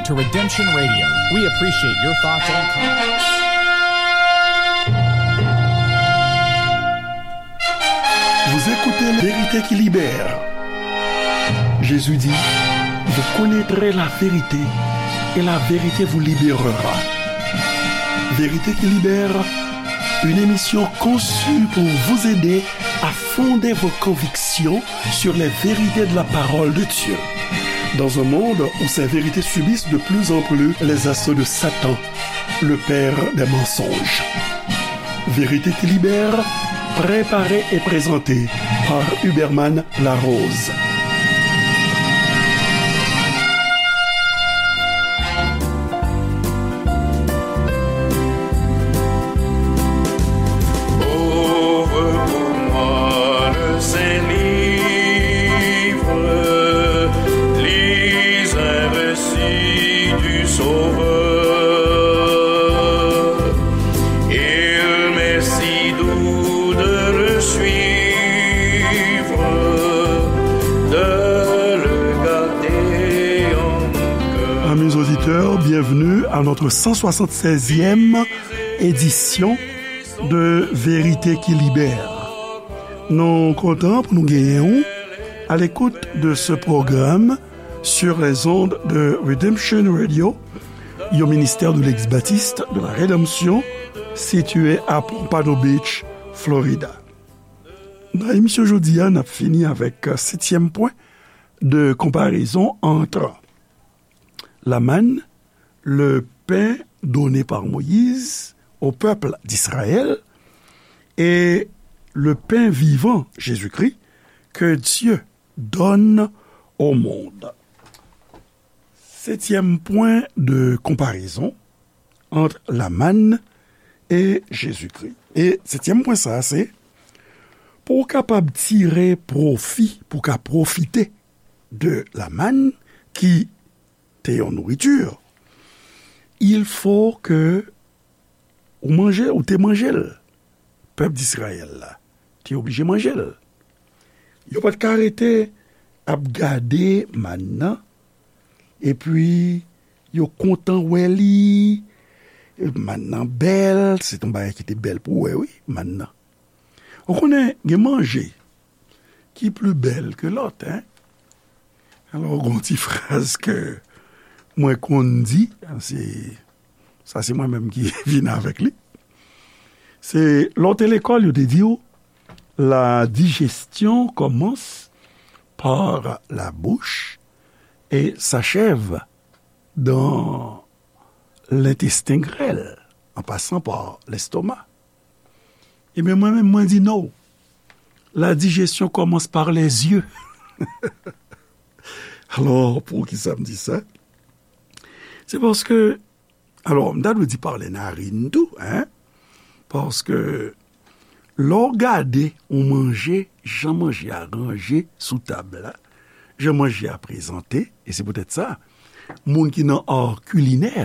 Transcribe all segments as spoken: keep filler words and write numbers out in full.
To Redemption Radio, we appreciate your thoughts and comments. Vous écoutez Vérité qui libère. Jésus dit, vous connaîtrez la vérité et la vérité vous libérera. Vérité qui libère, une émission conçue pour vous aider à fonder vos convictions sur les vérités de la parole de Dieu. Dans un monde où ces vérités subissent de plus en plus les assauts de Satan, le père des mensonges. Vérité qui libère, préparée et présentée par Huberman Larose. Ouvre pour moi le Saint Livre, lis un récit du Sauveur. Il m'est si doux de le suivre, de le garder en mon cœur. Amis auditeurs, bienvenue à notre cent soixante-seizième édition de Vérité qui Libère. Nou kontan pou nou genyen w à l'écoute de ce programme sur les ondes de Redemption Radio, yon ministère de l'Église baptiste de la Rédemption, situé à Pompano Beach, Florida. Nan emisyon jodi a, n ap fini avèk setyèm pwen de comparaison entre la manne, le pain donné par Moïse au peuple d'Israël et le pain vivant, Jésus-Christ, que Dieu donne au monde. Setyèm pwen de konparezon ant la mann e Jezikri. E setyèm pwen sa a, se pou w kapab tire pwofi, pou w ka pwofite de la mann ki te yon nouriti, il faut que ou manje, ou te manje l. Pèp Disrayèl la te oblije manje l. Yo pa t ka rete ap gade mann nan, epi yo kontan wè li. Mann nan bèl, se t yon bagay ki te bèl pou wè, wi, mann nan. Ou konnen, gen manje ki pli bèl ke lòt, en. Alò, gon ti fraz ke mwen konn di, se, sa se mwen menm ki vin avèk li. Se, lè w te lekòl, yo te di w, la digestion commence par la bouche et s'achève dans l'intestin grêle, en passant par l'estomac. Ebyen, mwen menm, mwen di non. La digestion commence par les yeux. Alò, poukisa m di sa? Se paske, alò, m ta dwe di pa lè narin tou, en? Paske, lè w gade yon manje, jan manje a ranje sou tab la, jan manje a prezante, e se poutèt sa, moun ki nan ar kilinè,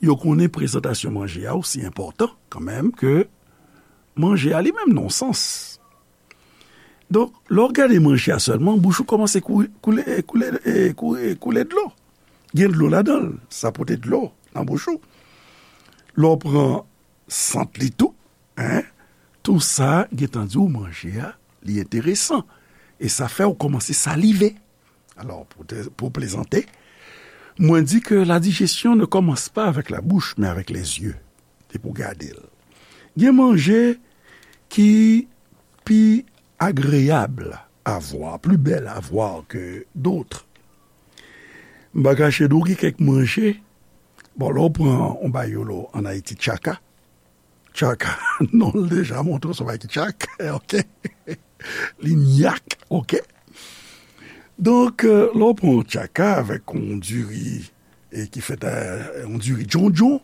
yo konnen prezantasyon manje a osi enpòtan kanmenm ke manje a li menm nan yon sans. Donk, lè w gade manje a sèlman, bouch ou kòmanse kou-, koule, koule, e, koule, koule dlo. Gen dlo ladan l, sa pote dlo nan bouch ou. Lè w pran sant li tou, en, tou sa gentan di w manje a, li enteresan. E sa fè w kòmanse salive. Alò, pou te, pou plezante, mwen di ke la digestion ne commence pas avec la bouche, mais avec les yeux. Se pou gade l. Gen manje ki pi agreyab a vwa, pli bèl a vwa ke dòt. M pa kache di w gen kèk manje, bon, lè w pran yon bagay yo lo ann Ayiti, tchaka, tchaka, non l deja montre w se yon bagay ki tchak, oke? Li nyak, oke? Donk, euh, lè w pran yon tchaka avèk yon diri, e ki fèt a yon diri djondjon,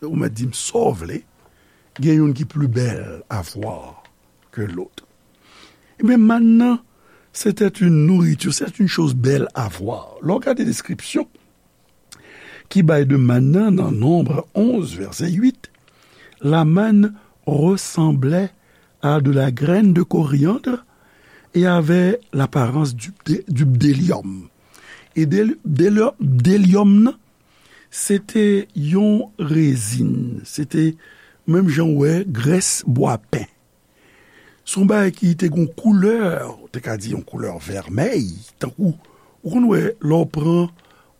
ou mèt di m sa w vle, gen youn ki pli bèl a vwa ke lòt. Ebyen, mann nan, c'était une nourriture, c'est une chose belle à voir. Lè w gade deskripsyon ki bay de mann nan nan Nonb onz, vèsè uit, la manne ressemblait à de la graine de coriandre et avait l'apparence du bdé-, du bdélium. E bdé-, bdélium, bdélium nan, se te yon rezin, se te menm jan w wè grès bwapen. Se yon bagay ki te gen yon koulè, ou te ka di yon koulè vèmèy, tankou, ou konn wè, lè w pran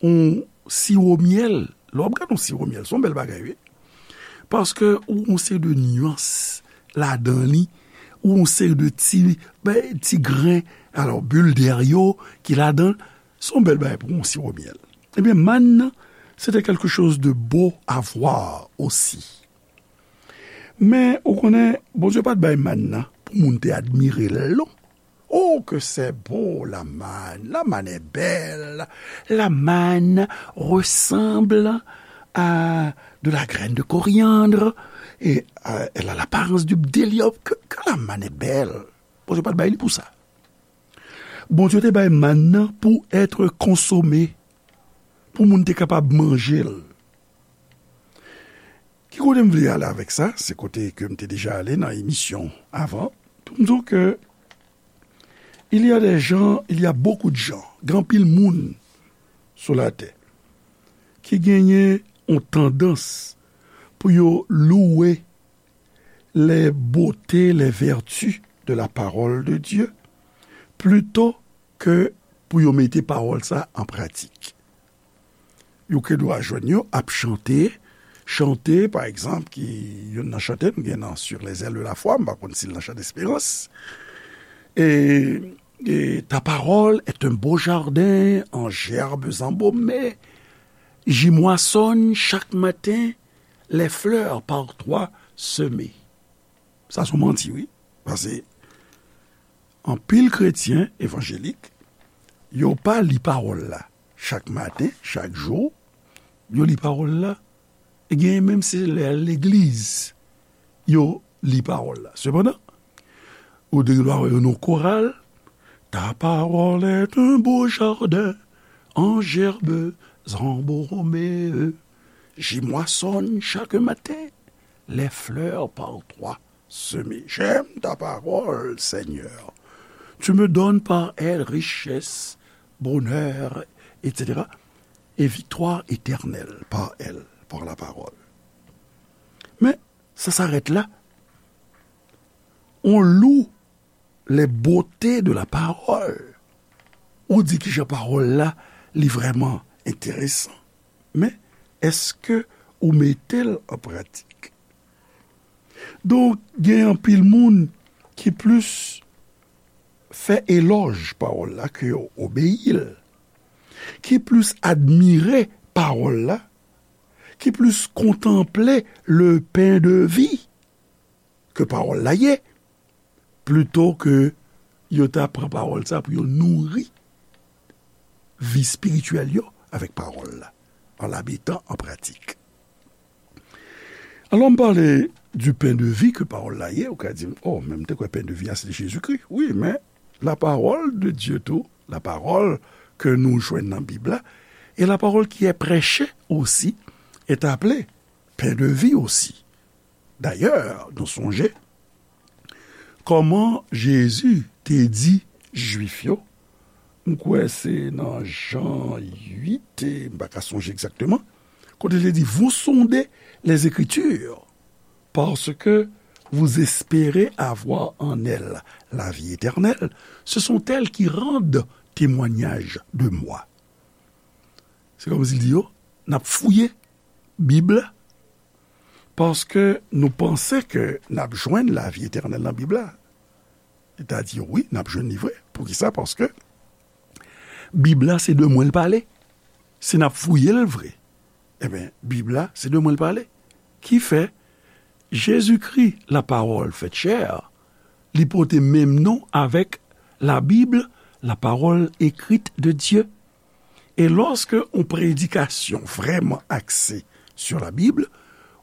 yon siwo myèl, lè w ap gade yon siwo myèl, se yon bèl bagay, wi. Paske ou gen yon seri de nyans ladan li, ou gen yon seri de ti, ben, ti gren, alò, bil dèyè yo ki ladan, se yon bèl bagay pou yon siwo myèl. Ebyen, mann nan, se te quelque chose de beau à voir aussi. Men, ou konnen, Bondye pa t bay mann nan pou moun te admire l, non. Oh, que c'est beau, la manne. La manne est belle. La manne ressemble à de la graine de coriandre et euh, elle a l'apparence du bdellium. Que, que la manne est belle. Bondye pa t bay li pou sa. Bondye te bay mann nan pou être consommé, pou moun te kapab manje l. Ki kote m vle ale avèk sa? Se kote ke m te deja ale nan emisyon avan. Pou m di w ke il y a des gens, il y a beaucoup de gens, gen anpil moun sou latè ki genyen yon tandans pou yo louwe les beautés, les vertus de la parole de Dieu, plito ke pou yo mete pawòl sa an pratik. Yo ke dwa jwenn yo ap chante, chante, pa egzanp, ki youn nan chante nou gen nan Sur les ailes de la foi, m pa konn si l nan Chan Desperans. E, e, ta parole est un beau jardin en gerbes embaumées. J'y moissonne chaque matin les fleurs par toi semées. Sa se yon manti, wi. Paske anpil kretyen evanjelik, yo pa li pawòl la chak maten, chak jou. Yo li pawòl la, e genyen menm se lè legliz, yo li pawòl la. Sepandan, ou te gen dwa wè yo nan koral, ta parole est un beau jardin en gerbes embaumées. J'y moissonne chaque matin les fleurs par toi semées. J'aime ta parole, Seigneur. Tu me donnes par elle richesse, bonheur, et cetera. Et victoire éternelle par elle, par la parole. Men, sa s'arrête là. On loue les beautés de la parole. Ou di kijan pawòl la, li vrèman enteresan. Men, èske ou mete l an pratik? Donk, gen anpil moun ki plis fè elòj pawòl la ke yo obeyi l, ki plis admire pawòl la, ki plis kontanple le pain de vie ke pawòl la ye, plito ke yo ta pran pawòl sa pou yo nouri vi espirityèl yo avèk pawòl la, en la mettant en pratique. Alò, m pale du pain de vie ke pawòl la ye, ou ka di m, oh, men m te kwè pain de vie a se Jezikri. Wi, men la parole de Dieu tou, la parole ke nou jwenn nan Bib la, et la parole qui est prêchée aussi est appelée pain de vie aussi. Dayè, nou sonje kòman Jezi te di Jwif yo, m kwè se nan Jan uit, e m pa ka sonje egzakteman, kote l te di, vous sondez les Écritures, parce que vous espérez avoir en elles la vie éternelle, ce sont elles qui rendent témoignage de moi. Se kòmsi l di yo, n ap fouye Bib la, paske nou panse ke n ap jwenn lavi etènèl nan Bib la. Li ta di yo, wi, n ap jwenn li vre. Poukisa? Paske Bib la, se de mwen l pale. Si n ap fouye l vre, ebyen, Bib la, se de mwen l pale. Ki fè, Jezikri, la parole faite chair, li pote menm non avèk la Bible, la parole écrite de Dieu. E lòske yon predikasyon vrèman akse sur la Bible,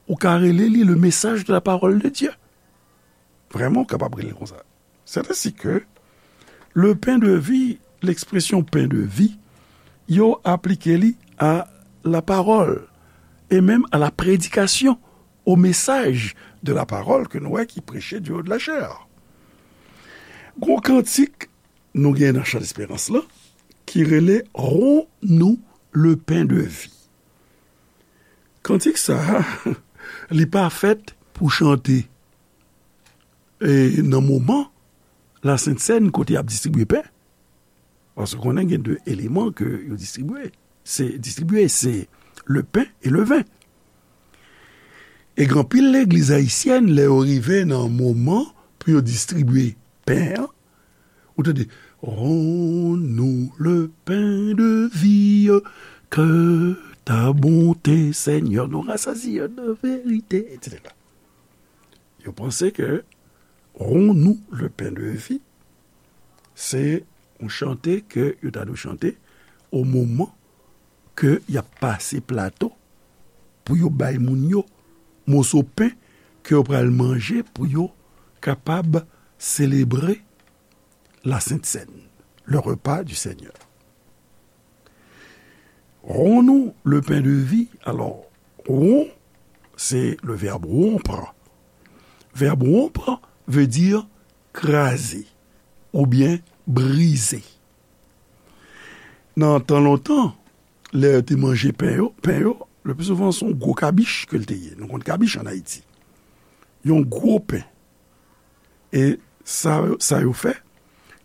ou ka rele li le message de la parole de Dieu. Vrèman, ou kapab rele l konsa. C'est ainsi que le pain de vie, l'expression pain de vie, yo aplike li a la parole et même à la prédication, au message de la parole ke nou wè ki preche du haut de la chair. Gon kantik nou gen nan Chan Desperans lan ki rele Rends-nous le pain de vie. Kantik sa a, li pa fèt pou chante e nan moman Lasent Sèn kote y ap distribye pen. Paske konnen gen de eleman ke yo distribye. Se distribye, se le pen e le ven. E gen anpil legliz ayisyèn, lè yo rive nan moman pou yo distribye pen an, ou tande, Rends-nous le pain de vie, que ta bonté, Seigneur, nous rassasie de vérité, et cetera. Yo panse ke Rends-nous le pain de vie, se yon chante ke yo ta dwe chante o moman ke y ap pase plato pou yo bay moun yo moso pen ke yo pral manje pou yo kapab selebre Lasent Sèn, le repas du Seigneur. Rends-nous le pain de vie. Alors, rends, c'est le verbe rompre. Verbe rompre veut dire kraze oubyen brize. Nan tan lontan, lè yo te manje pen yo, pen yo, le pli souvan se yon gwo kabich ke l te ye. Nou konn kabich ann Ayiti. Yon gwo pen. E sa, sa yo fè,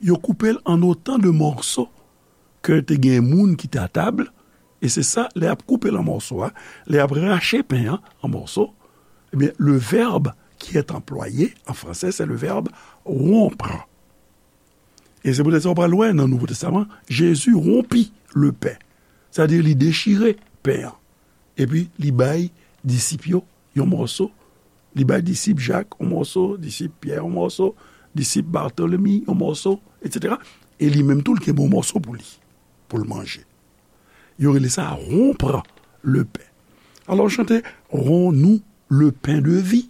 yo koupe l an otan de mòso ke te gen moun ki te a tab, e se sa, lè y ap koupe l an mòso a, lè y ap rache pen an an mòso, ebyen, le verbe qui est employé en français, c'est le verbe rompre. E se poutèt sa w pral wè nan Nouvo Testaman, Jezi wonpi le pen. Sètadi li dechire pen an. Epi li bay disip yo yon mòso. Li bay disip Jak yon mòso, disip Pyè yon mòso, disip Batolemi yon mòso, etsetera. E li menm tou, l kenbe yon mòso pou li, pou l manje. Yo rele sa rompre le pain. Alò, chante Rends-nous le pain de vie.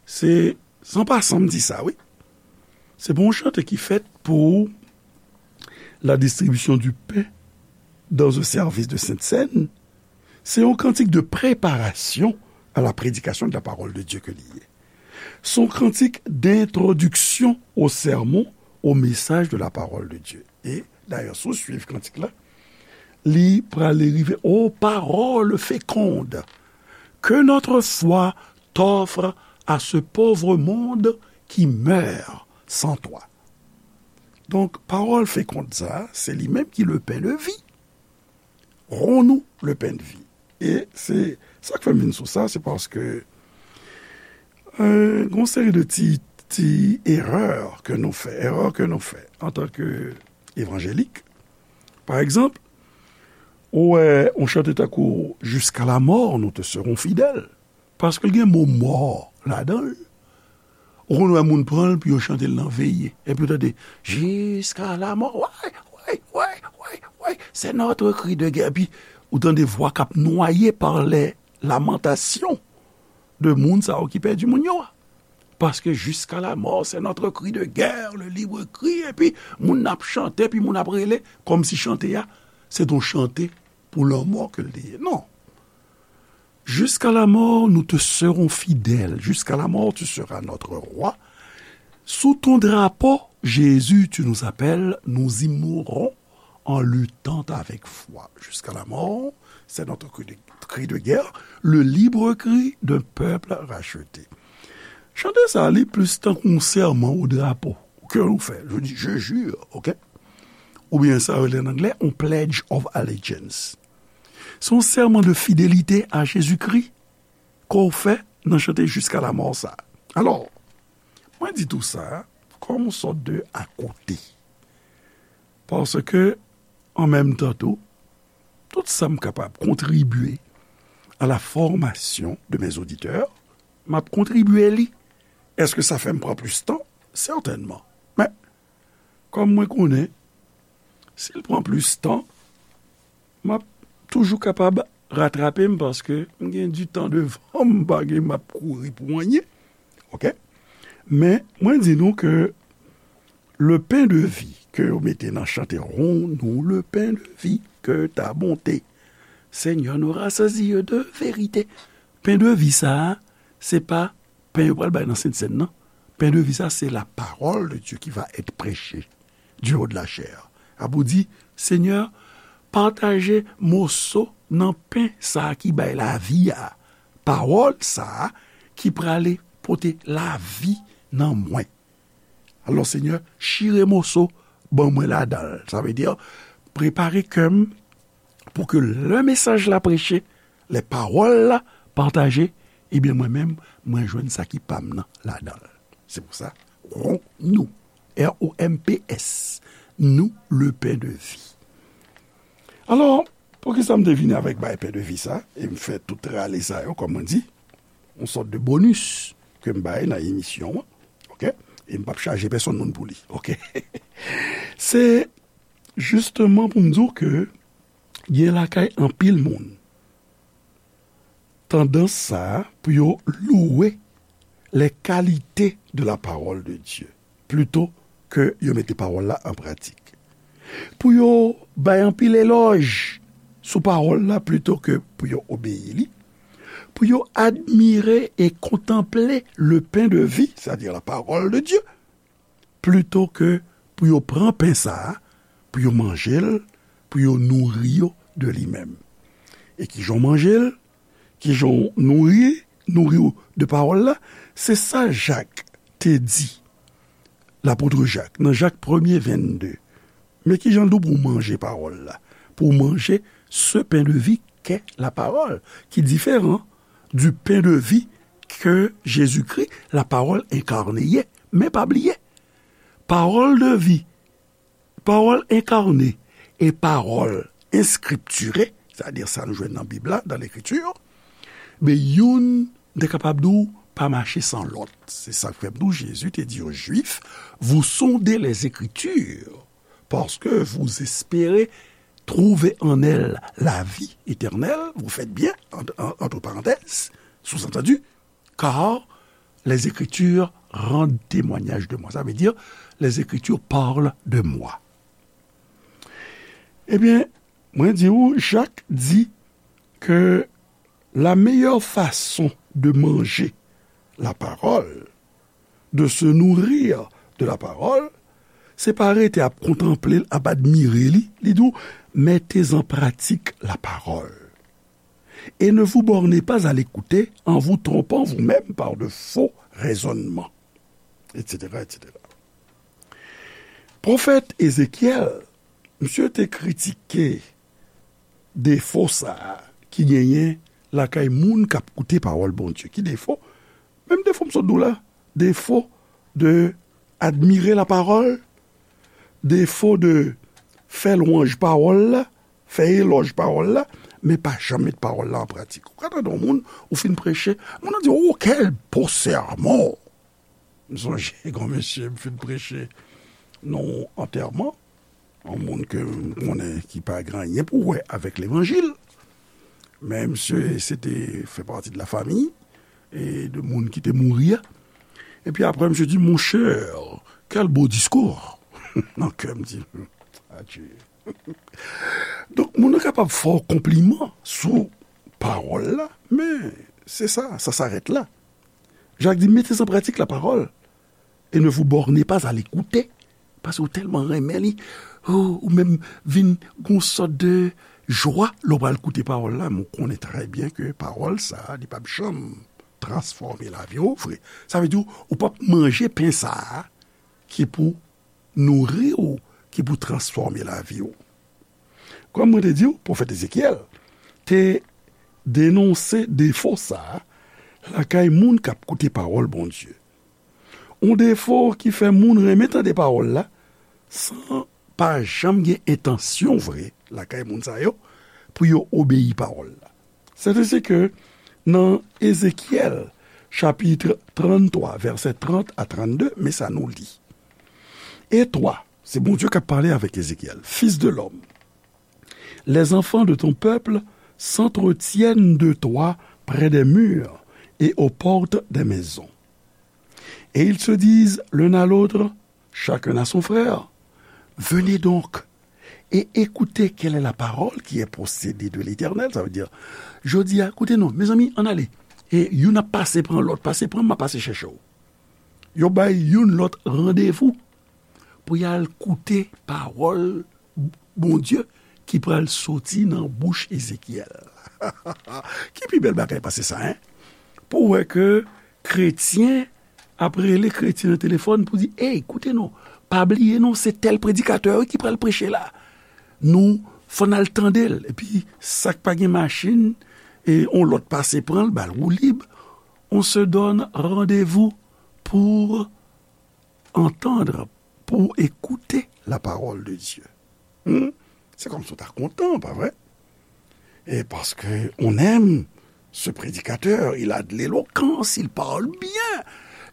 Se, san pasan m di sa, wi. Se pa yon chante ki fèt pou la distribution du pain dans un service de Sainte Seine. Se yon kantik de préparation à la prédication de la parole de Dieu ke li ye. Se yon kantik d'introduction au sermon, au message de la parole de Dieu. E dayè, si w swiv kantik la, li prale rive, Ô parole féconde, que notre foi t'offre à ce pauvre monde qui meurt sans toi. Donk, pawòl fekonn sa a, se li menm ki le pain de vie. Rends-nous le pain de vie. E se sa k fè m vin sou sa, se paske, euh, gen yon seri de ti, ti erè ke nou fè, erè ke nou fè antanke evanjelik. Pa egzanp, ou wè yon chante tankou Jusqu'à la mort, nous te serons fidèles. Paske l gen mo mò ladan l. Ou konn wè moun pran l pou yo chante l nan veye. Epi ou tande, Jusqu'à la mort. Way, way, way, way, way. C'est notre cri de guerre. Epi ou tande vwa k ap nwaye par les lamentations de moun sa yo ki pèdi moun yo a. Paske Jusqu'à la mort, c'est notre cri de guerre, le libre cri. Epi moun ap chante, epi moun ap rele, kòmsi chante a, se t on chante pou lanmò ke l te ye. Non. Jusqu'à la mort, nous te serons fidèles. Jusqu'à la mort, tu seras notre roi. Sous ton drapeau, Jésus, tu nous appelles, nous y mourrons en luttant avec foi. Jusqu'à la mort, c'est notre cri de, cri de guerre, le libre cri d'un peuple racheté. Chante sa, li plis tankou yon sèman o drapo ke ou fè. Je dis, je jure, ok? Oubyen sa yo rele an anglè, on pledge of allegiance. Se yon sèman de fidelite a Jezikri ke w fè nan chante Jusqu'à la mort sa. Alò, mwen di tou sa kòm yon sòt de akote. Paske, an menm tan tou, tout sa m kapab kontribye à la formation de mes auditeurs, m ap kontribye li. Èske sa fè m pran plis tan? Sètènman. Men, kòm mwen konnen, si l pran plis tan, m ap toujou kapab ratrape m paske m gen du temps devan m, m pa gen, m ap kouri pou anyen. Ok? Men, mwen di nou ke le pain de vie ke yo mete nan chante Rends-nous le pain de vie, que ta bonté, Seigneur, nous rassasie de vérité. Pen de vi sa a, se pa pen yo pral bay nan Sent Sèn nan. Pen de vi sa, c'est la parole de Dieu qui va être prêchée du haut de la chaire. Ap ou di, Senyè, pataje moso nan pen sa a ki bay lavi a, pawòl sa a ki prale pote lavi nan mwen. Alò, Senyè, chire moso, ban mwen ladan l. Sa vle di, prepare kè m pou ke lè mesaj la preche, lè pawòl la pataje, ebyen, mwen menm, mwen jwenn sa ki pa m nan ladan l. Se pou sa, romps-nous, R O M P S, nous le pain de vie. Alò, poukisa m te vini avèk bay pain de vie sa, e m fè tout rale sa yo, kòm mwen di, yon sòt de bonis ke m bay nan emisyon an, oke? E m p ap chaje pèsonn moun pou li, oke? Se jisteman pou m di w ke gen lakay anpil moun tandans sa a pou yo louwe les qualités de la parole de Dieu, plito ke yo mete pawòl la an pratik. Pou yo bay anpil elòj sou pawòl la, plito ke pou yo obeyi li. Pou yo admire e kontanple le pain de vie, c'est-à-dire la parole de Dieu, plito ke pou yo pran pen sa a, pou yo manje l, pou yo nouri yo de li menm. E kijan w manje l, kijan w nouri, nouri w de pawòl la, se sa Jak te di, lapot Jak, nan Jak premye vennde. Men kijan l di w pou w manje pawòl la, pou w manje ce pain de vie qu'est la parole, ki diferan du pain de vie que Jésus-Christ, la parole incarnée, ye. Men pa bliye, pawòl de vi, pawòl enkarne e pawòl enskriptire, sètadi sa nou jwenn nan Bib la, dans l'Écriture, men youn te kapab di w pa mache san lòt. Se sa k fè m di w, Jezi te di yo Jwif, vous sondez les Écritures, parce que vous espérez trouver en elles la vie éternelle, vous faites bien, en, en, entre parenthèses, sous-entendu, car les Écritures rendent témoignage de moi. Sa vle di, les Écritures parlent de moi. Ebyen, mwen di w, Jak di ke la meilleure façon de manger la parole, de se nourrir de la parole, se pa rete ap kontanple l, ap admire li, li di w, mettez en pratique la parole. Et ne vous bornez pas à l'écouter en vous trompant vous-même par de faux raisonnements, et cetera, et cetera. Pwofèt Ezekyèl, misye te kritike defo sa a ki genyen lakay moun k ap koute pawòl Bondye. Ki defo? Menm defo m sot di w la. Defo de admire la parole, defo de fè lwanj pawòl la, fè elòj pawòl la, men pa janm met pawòl la an pratik. Ou ka tande yon moun, ou fin preche, moun nan di, "Oh, quel beau sermon!" M sonje yon mesye m fin preche nan yon antèman, yon moun ke m konnen ki pa gen anyen pou wè avèk levanjil. Men misye, se te fè pati de la famiy e de moun ki te mouri a. Epi apre, misye di, "Mon cher, quel beau discours!" Nan kè m di, "Adye." Donk, moun nan kapab fè w konpliman sou pawòl la, men se sa, ça s'arrête là. Jak di, mettez en pratique la parole et ne vous bornez pas à l'écouter. Paske ou tèlman renmen li, ou, ou menm vin gon sòt de jwa lè w pral koute pawòl la, men w konnen trè byen ke pawòl sa a, li p ap janm transfòme lavi w vre. Sa vle di, ou p ap manje pen sa a ki pou nouri w, ki pou transfòme lavi w. Kòm mwen te di w, pwofèt Ezekyèl te denonse defo sa a lakay moun k ap koute pawòl Bondye. Yon defo ki fè moun renmen tande pawòl la, san pa janm gen entansyon vre lakay moun sa yo pou yo obeyi pawòl la. Sètadi ke nan Ezekyèl, chapit tranntwa, vèsè trant a trannde, men sa nou li. Et toi, se Bondye k ap pale avèk Ezekyèl, fils de l'homme, les enfants de ton peuple s'entretiennent de toi près des murs et aux portes des maisons. Et ils se disent l'un à l'autre, chacun à son frère, venez donc et écoutez quelle est la parole qui est procédée de l'Éternel. Sa vle di, jodi a, koute non, mezanmi, ann ale. E youn ap pase pran lòt, pase pran m, m ap pase chèche w. Yo bay youn lòt randevou pou y al koute pawòl Bondye ki pral soti nan bouch Ezekyèl. Ki pi bèl bagay pase sa, en? Pou w wè ke kretyen ap rele kretyen nan telefòn pou di, "Ey, koute non, pa bliye non, se tèl predikatè wi ki pral preche la. Nou, fò n al tande l." Epi, sa k pa gen machin, e on lòt pase pran l, ba l woulib. On se donne rendez-vous pour entendre, pour écouter la parole de Dieu. Hmm? Se kòmsi w ta kontan, pa vre? E paske on aime ce prédicateur, il a de l'éloquence, il parle bien.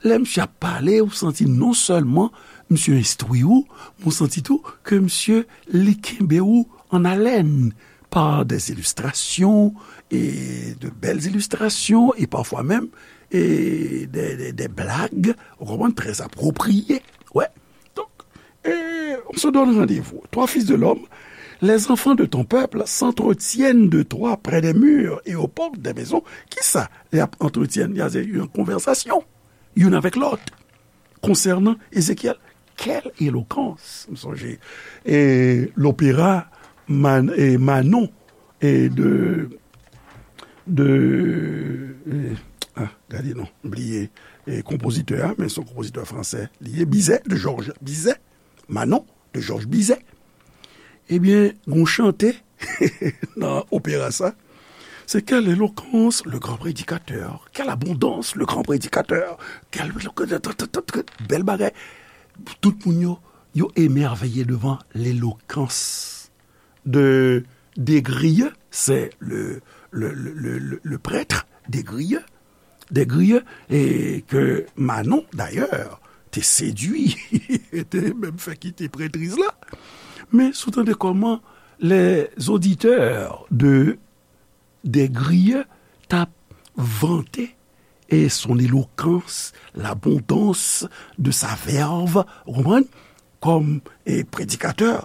Lè misye ap pale, ou santi non sèlman misye enstwi ou, men ou santi tou ke misye li kenbe ou an alèn par des illustrations, e de belles illustrations, e parfois même, e des, des, des blagues, ou konprann, très appropriées. Ouais. Donc, et on se donne rendez-vous. Toi, fils de l'homme, les enfants de ton peuple s'entretiennent de toi près des murs et aux portes des maisons. Kisa y ap antretyenn? Y a yon konvèsasyon youn avèk lòt konsènan Ezekyèl. Quelle éloquence! M sonje, e, lopera Man-, e, Manon, e, de, de, e, ah, gade non, m bliye, e, konpozitè a, men se yon konpozitè fransè li ye, Bizet, de Georges Bizet, Manon, de Georges Bizet. Ebyen, gon chante nan opera sa. Se quelle éloquence, le grand prédicateur. Quelle abondance, le grand prédicateur. Quelle, bèl bagay. Tout moun yo, yo émerveillé devant l'éloquence de Desgrieux, c'est le, le, le, le, le, le prêtre Desgrieux, Desgrieux, e ke Manon, dayè, te sedui, te menm fè kite prètriz la. Men, si w tande kòman les auditeurs de Desgrieux t ap vante et son éloquence, l'abondance de sa verve, ou konprann? Kòm, e, predikatè,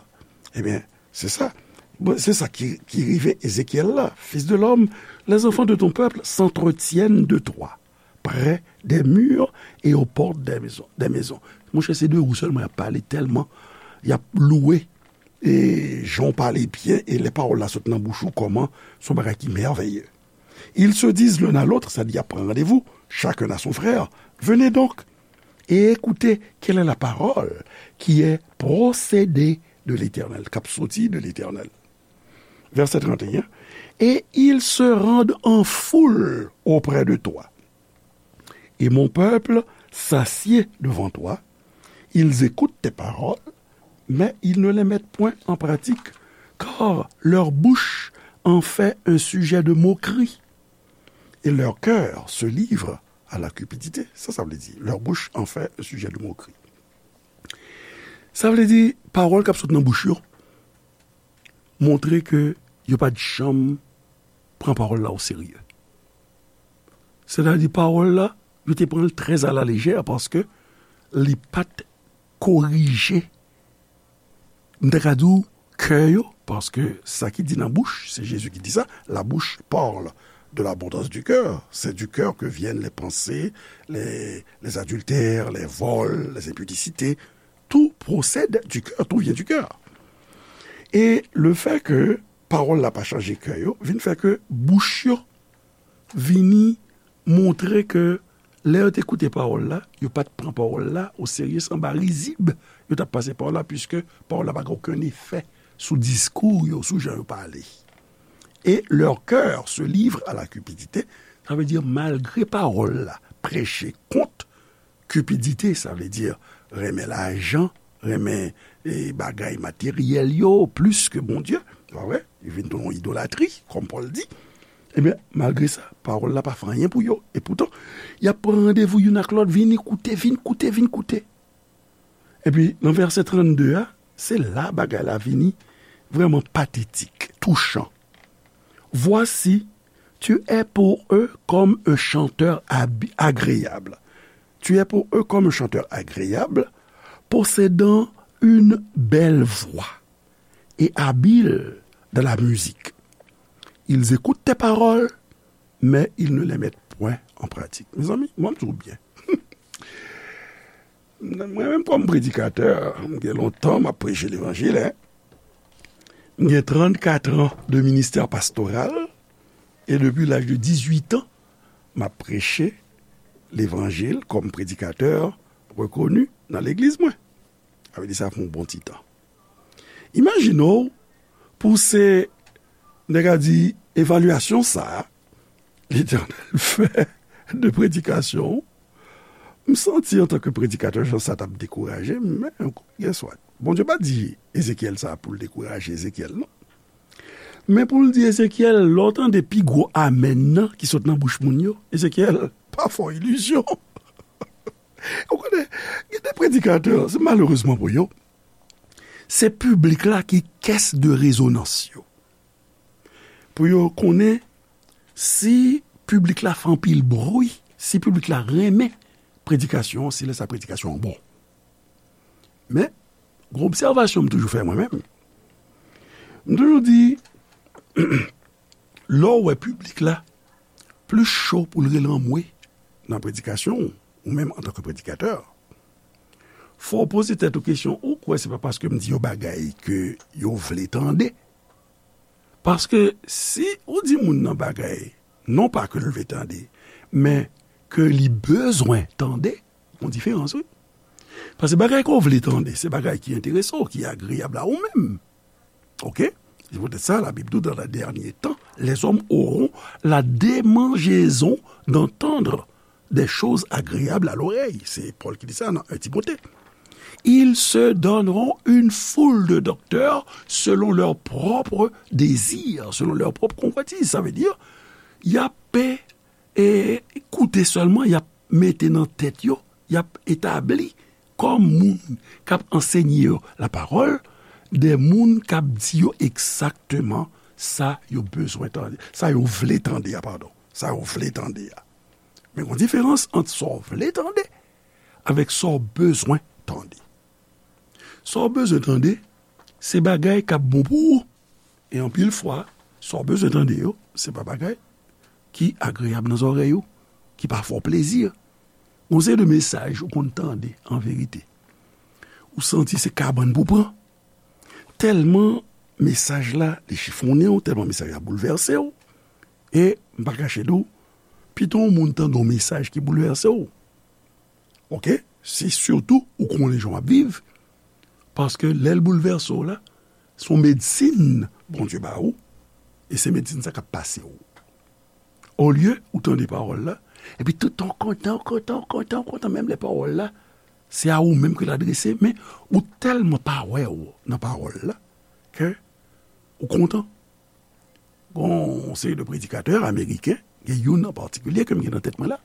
ebyen, se sa. Bon, se sa ki, ki rive Ezekyèl la. Fils de l'homme, les enfants de ton peuple s'entretiennent de toi, près des murs et aux portes des maisons, des maisons. Monchè, se de ou sèlman y ap pale, tèlman y ap lwe, e, jan w pale byen, e lè pawòl la sot nan bouch ou, kòman se yon bagay ki mèvèye. Ils se disent l'un à l'autre, sa di y ap pran randevou, chacun à son frère. Venez donc et écoutez quelle est la parole qui est procédée de l'Éternel, k ap soti de Letènèl. Vèsè trannteyen, et ils se rendent en foule auprès de toi. Et mon peuple s'assied devant toi. Ils écoutent tes paroles, mais ils ne les mettent point en pratique, car leur bouche en fait un sujet de moquerie, et leur cœur se livre à la cupidité. Sa, sa vle di, leur bouche en fait un sujet de moquerie. Sa vle di, pawòl k ap sot nan bouch yo montre ke yo pa t janm pran pawòl la o serye. Sètadi, pawòl la, yo te pran l trè a la lejè paske li pa t korije, m ta ka di w, kè yo, paske sa ki di nan bouch, se Jezi ki di sa, la bouche parle de l'abondance du cœur. C'est du cœur que viennent les pensées, les, les adultères, les vols, les impudicités. Tout procède du cœur, tout vient du cœur. E le fait que pawòl la pa chanje kè yo, vin fè ke bouch yo vini montre ke lè yo te koute pawòl la, yo pa t pran pawòl la o serye, se anba rizib yo t ap pase pawòl la, piske pawòl la pa gen okenn efè sou diskou yo, sou jan yo pale. Et leur cœur se livre à la cupidité, sa vle di malgre pawòl la preche kont kipidite, sa vle di renmen lajan, renmen, e, bagay materyèl yo plis ke Bondye, pa vre? Li vin tounen yon idolatri, kòm Pòl di. Ebyen, malgre sa, pawòl la pa fè anyen pou yo. E poutan, y ap pran randevou youn ak lòt, vini koute, vin koute, vin koute. Epi, nan vèsè trannde a, se la bagay la vini vrèman patetik, touchan. Voici, tu es pour eux comme un chanteur ab-, agréable. Tu es pour eux comme un chanteur agréable, possédant une belle voix et habile dans la musique. Ils écoutent tes paroles, mais ils ne les mettent point en pratique. Mezanmi, mwen, m di w byen. Mwen menm, kòm predikatè, m gen lontan m ap preche levanjil, en. M gen trannkat an de ministè pastoral e depi laj de dizuit an, m ap preche levanjil kòm predikatè rekoni nan legliz mwen. Sa vle di sa fè yon bon ti tan. Imajine w pou se, nèg a di, evalyasyon sa a, Letènèl fè de predikasyon. M santi antanke predikatè, jan sa t ap dekouraje m, men, guess what? Bondye pa di Ezekyèl sa pou l dekouraje Ezekyèl, non. Men pou l di Ezekyèl, lè w tande pi gwo amèn nan ki sot nan bouch moun yo, Ezekyèl, pa fè w ilizyon. Ou konnen, gen de predikatè, se malerezman pou yo, se piblik la ki kès de rezonans yo. Pou yo konnen si piblik la fè anpil bri, si piblik la renmen predikasyon an, se lè sa predikasyon an bon. Men, gen obsèvasyon m toujou fè mwen menm. M toujou di, lè w wè piblik la plis cho pou l rele anmwe nan predikasyon w, ou menm antanke predikatè, fò w poze tèt ou kesyon, ou kwè se pa paske m di yo bagay ke yo vle tande? Paske si ou di moun nan bagay, non pa ke l vle tande, men ke li bezwen tande, gon diferans, wi. Paske bagay ke w vle tande, se bagay ki enterese w, ki agreyab a ou menm. Oke? Se poutèt sa, Labib di w, dans les derniers temps, les hommes auront la démangeaison d'entendre des choses agréables à l'oreille. Se Pòl ki di sa nan en Timote. Ils se donneront une foule de docteurs selon leur propre désir, selon leur propre convoitise. Sa vle di, y ap e, koute sèlman, y ap mete nan tèt yo, y ap etabli kòm moun k ap ansenye yo lapawòl, de moun k ap di yo egzakteman sa yo bezwen tande, sa yo vle tande a, padon, sa yo vle tande a. Men gon diferans ant sa w vle tande avèk sa w bezwen tande. Sa w bezwen tande, se bagay k ap bon pou ou. E anpil fwa, sa w bezwen tande yo, se pa bagay ki agreyab nan zòrèy ou, ki pa fè w plezi. Gon seri de mesaj ou konn tande, an verite, ou santi se kabann pou pran. Tèlman mesaj la, li chifonnen w, tèlman mesaj la boulvèse w. E m pa kache di w, pito yon moun tande yon mesaj ki boulvèse w. Oke? Se sitou ou konnen jan w ap viv, paske lè l boulvèse w la, se yon medsin Bondye ba ou, e se medsin sa k ap pase w. Olye ou tande pawòl la, epi toutan w kontan, w kontan, w kontan, w kontan, menm lè pawòl la, se a ou menm ke l adrese, men ou tèlman pa wè w nan pawòl la, ke ou kontan. Gon yon seri de predikatè ameriken, gen youn an patikilye ke m gen nan tèt mwen la.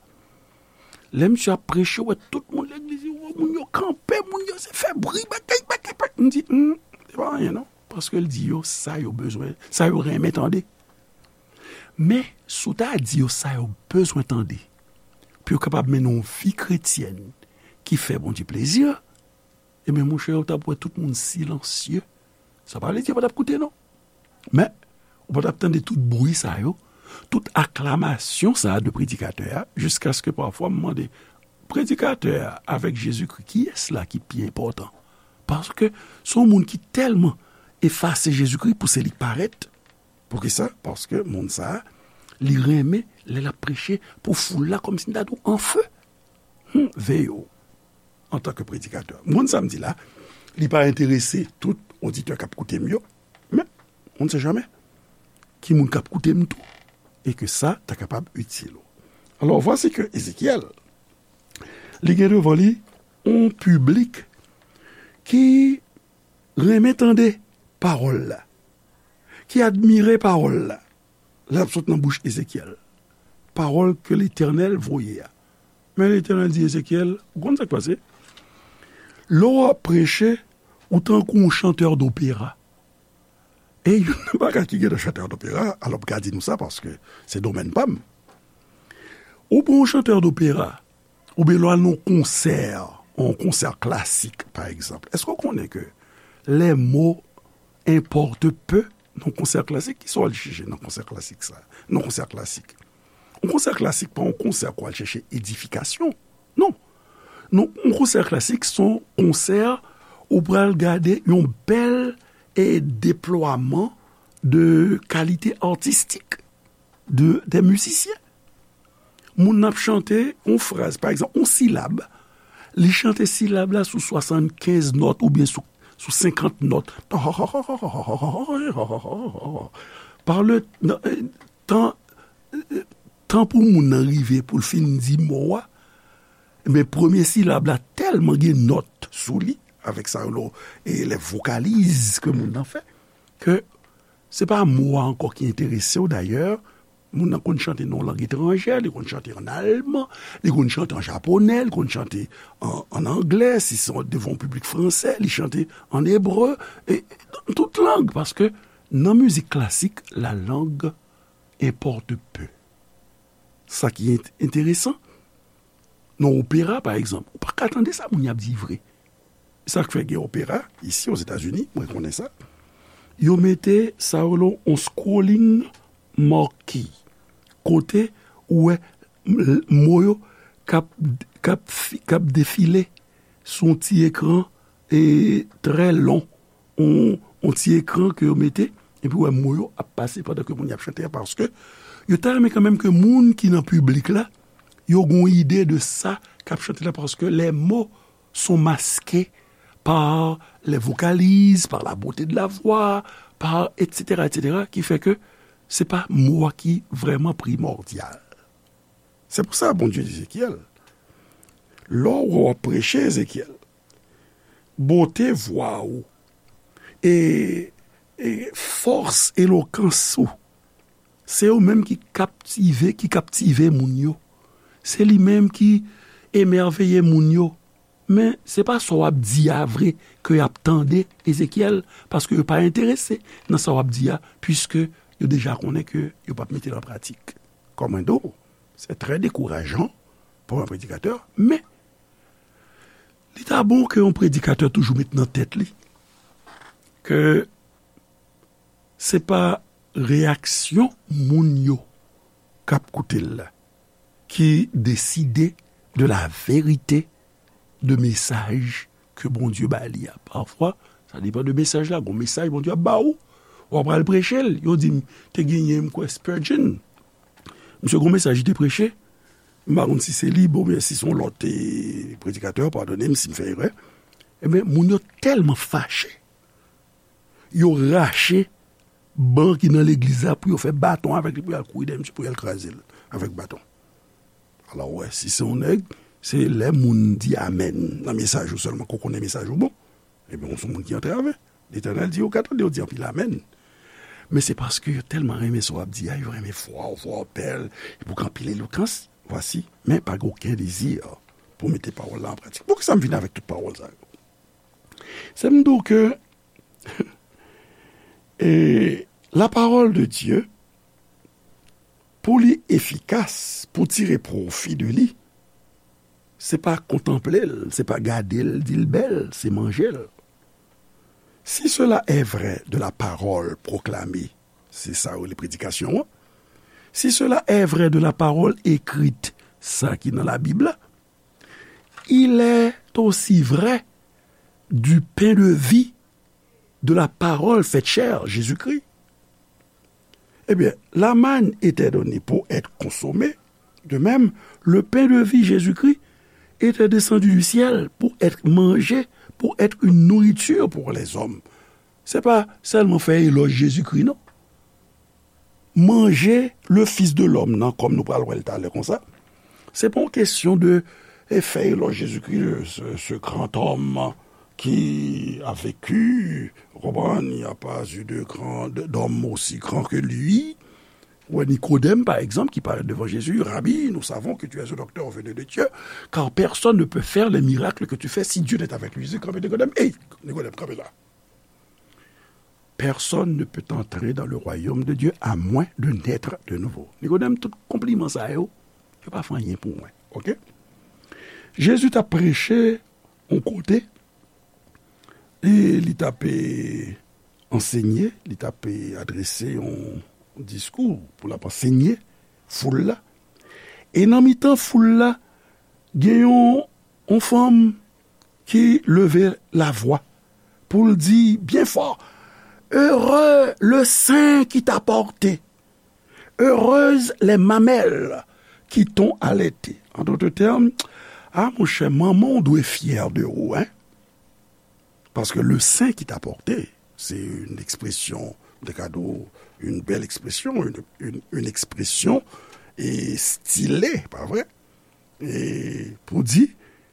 Lè misye ap preche, ou wè tout moun legliz, ou wè moun yo kanpe, moun yo se fè bri, bagay, bagay, bagay. M di, hmm, se pa anyen non. Paske l di yo sa yo bezwen, sa yo renmen tande. Men, si w ta di yo sa yo bezwen tande, pou yo kapab mennen yon vi kretyèn ki fè Bondye plezi, ebyen, monchè, ou t ap wè tout moun silansye. Sa pa vle di yo pa t ap koute, non. Men, ou pa t ap tande tout bri sa yo, tout aklamasyon sa a de predikatè a, jiskaske pafwa m mande, predikatè a avèk Jezikri, kiyès la ki pi enpòtan? Paske se yon moun ki tèlman efase Jezikri pou se li k parèt. Poukisa? Paske moun sa a, li renmen lè l ap preche pou foul la, kòmsi m ta di w anfe. Hmm, veye w. Antanke predikatè. Moun sa m di la, li pa enterese tout oditè k ap koute m yo, men, on ne sait jamais, ki moun k ap koute m tou, e ke sa ta kapab itil ou. Alò, vwasi ke Ezekyèl, li gen devan li yon piblik ki renmen tande pawòl la, ki admire pawòl la, lè l ap sot nan bouch Ezekyèl. Pawòl ke Letènèl voye a. Men Letènèl di Ezekyèl, ou konn sa k pase? Lè w ap preche, ou tankou yon chantè dopera. E youn nan bagay ki gen nan chantè dopera, alò m ka di nou sa paske se domèn pa m. Ou pran yon chantè dopera, oubyen lè w al nan yon konsè, yon konsè klasik, pa egzanp, èske w konnen ke les mots importent peu nan yon konsè klasik? Kisa w al chèche nan konsè klasik sa? Nan konsè klasik. Yon konsè klasik pa yon konsè ke w al chèche edifikasyon. Non. Non, yon konsè klasik se yon konsè ou pral gade yon bèl e deplwaman de kalite atistik de, de mizisyen. Moun nan ap chante yon fraz, pa egzanp, yon silab, li chante silab la sou swasannkenz nòt oubyen sou, sou senkant nòt. Par le, nan, tan, tan pou moun nan rive pou l fin di mo a, men premye silab la tèlman gen nòt sou li, avèk sa yo, e lè vokaliz ke moun nan fè, ke se pa mo a ankò ki enterese w dayè. Moun nan konn chante nan yon lang etranjè, li konn chante ann alman, li konn chante an japonè, li konn chante an, an anglè, si se devan yon piblik fransè, li chante an ebre, e, nan tout lang, paske nan mizik klasik, la langue importe peu. Sa ki ent-, enteresan, nan opera, pa egzanp, ou pa ka tande sa moun y ap di vre. Sa k fè gen opera, isi, Ozetazini, mwen konnen sa, yo mete sa yo rele yon scrolling marquee, kote ou wè m-, mo yo k ap, k ap fi-, k ap defile sou yon ti ekran, e, trè lon, yon, yon ti ekran ke yo mete, epi w wè mo yo ap pase pandan ke moun y ap chante a, paske yo ta renmen kanmenm ke moun ki nan piblik la, yo gen yon ide de sa k ap chante la, paske les mots sont masqués par les vocalises, par la beauté de la voix, par et cetera, et cetera, ki fè ke se pa mo a ki vrèman primòdyal. Se pou sa Bondye di Ezekyèl, lè w ap preche, Ezekyèl, bote vwa ou e, e fòs elokans ou, se yo menm ki kaptive, ki kaptive moun yo. Se li menm ki emèveye moun yo. Men se pa sa w ap di a vre ke y ap tande, Ezekyèl, paske yo pa enterese nan sa w ap di a, piske yo deja konnen ke yo p ap mete l an pratik. Kòm mwen di w, se trè dekourajan pou yon predikatè, men li ta bon ke yon predikatè toujou met nan tèt li ke se pa reyaksyon moun yo k ap koute l la ki deside de la verite de mesaj ke Bondye ba li a. Pafwa, sa depann de mesaj la. Gon mesaj Bondye ap ba ou, w ap al preche l. Yo di m, te genyen, m kwè, Spurgeon. Misye gon mesaj li te preche. M pa konn si se li, bon, oubyen si se yon lòt, e, predikatè, padone m si m fè erè. Ebyen, moun yo tèlman fache, yo rache ban ki nan legliz la pou yo fè baton avèk li, pou y al kouri dèyè misye, pou y al kraze l avèk baton. Alò, w wè, si se yon nèg, se lè moun di amèn nan mesaj ou sèlman ke w konnen mesaj ou bon. Ebyen, w se yon moun ki antrave. Letènèl di, yo ka tande w di anpil amèn. Men se paske yo tèlman renmen sa w ap di a, yo renmen vwa w, vwa w bèl, epi w gen anpil elokans, vwasi, men pa gen okenn dezi pou mete pawòl la an pratik. Poukisa m vin avèk tout pawòl sa yo? Se m di w ke, e, la parole de Dieu, pou li efikas, pou tire pwofi de li, se pa kontanple l, se pa gade l, di l bèl, se manje l. Si cela est vrai de la parole proclamée, se sa yo rele predikasyon an. Si cela est vrai de la parole écrite, sa ki nan Labib la, il est aussi vrai du pain de vie de la parole faite chair, Jésus-Christ. Eh bien, la manne était donnée pour être consommée. De même, le pain de vie, Jésus-Christ, était descendu du ciel pour être mangé, pour être une nourriture pour les hommes. Se pa sèlman fè elòj Jezikri, non. Manje le Fils de l'Homme nan, kòm nou pral wè l talè konsa, se pa yon kesyon de, e, fè elòj Jezikri, ce, ce grand homme qui a vécu, ou konprann, il n'y a pas eu de grand, de, d'homme aussi grand que lui. Ou wè Nikodèm, pa egzanp, ki parèt devan Jezi, Rabi, nous savons que tu es un docteur venu de Dieu, car personne ne peut faire les miracles que tu fais si Dieu n'est avec lui. Jezi kanpe Nikodèm, ey, Nikodèm, kanpe la. Personne ne peut entrer dans le royaume de Dieu à moins de naître de nouveau. Nikodèm, tout konpliman sa yo, yo pa fè anyen pou mwen. Oke? Jezi t ap preche yon kote, e li t ap, e, ansenye, li t ap, e, adrese yon diskou pou l ap ansenye foul la. E nan mitan foul la, gen yon, yon fanm ki leve lavwa pou l di byen fò, Heureux le sein qui t'a porté. Heureuses les mamelles qui t'ont allaité. En d'autres termes, ah, monchè, manman w dwe fyè de ou, hein? Paske le sein qui t'a porté, c'est une expression de cadeau, une belle expression, une, une, une expression et stylée, pa vre? E pou di,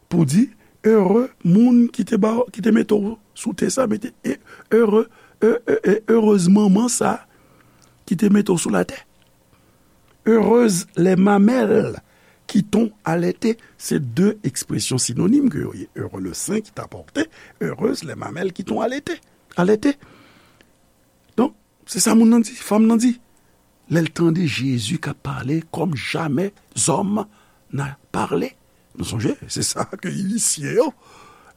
pou di, ere moun ki te ba, ki te mete w sou tè sa, mete, e, ere, e, e, e, erez manman sa ki te mete w sou latè. Heureuses les mamelles qui t'ont allaité, se de ekspresyon sinonim ke yo ye. Heureux le sein qui t'a porté, heureuses les mamelles qui t'ont allaité. Allaité. Donk, se sa moun nan di, fanm nan di. Lè l tande Jezi k ap pale comme jamais homme n'a parlé. Nou sonje, se sa ke inisye yo,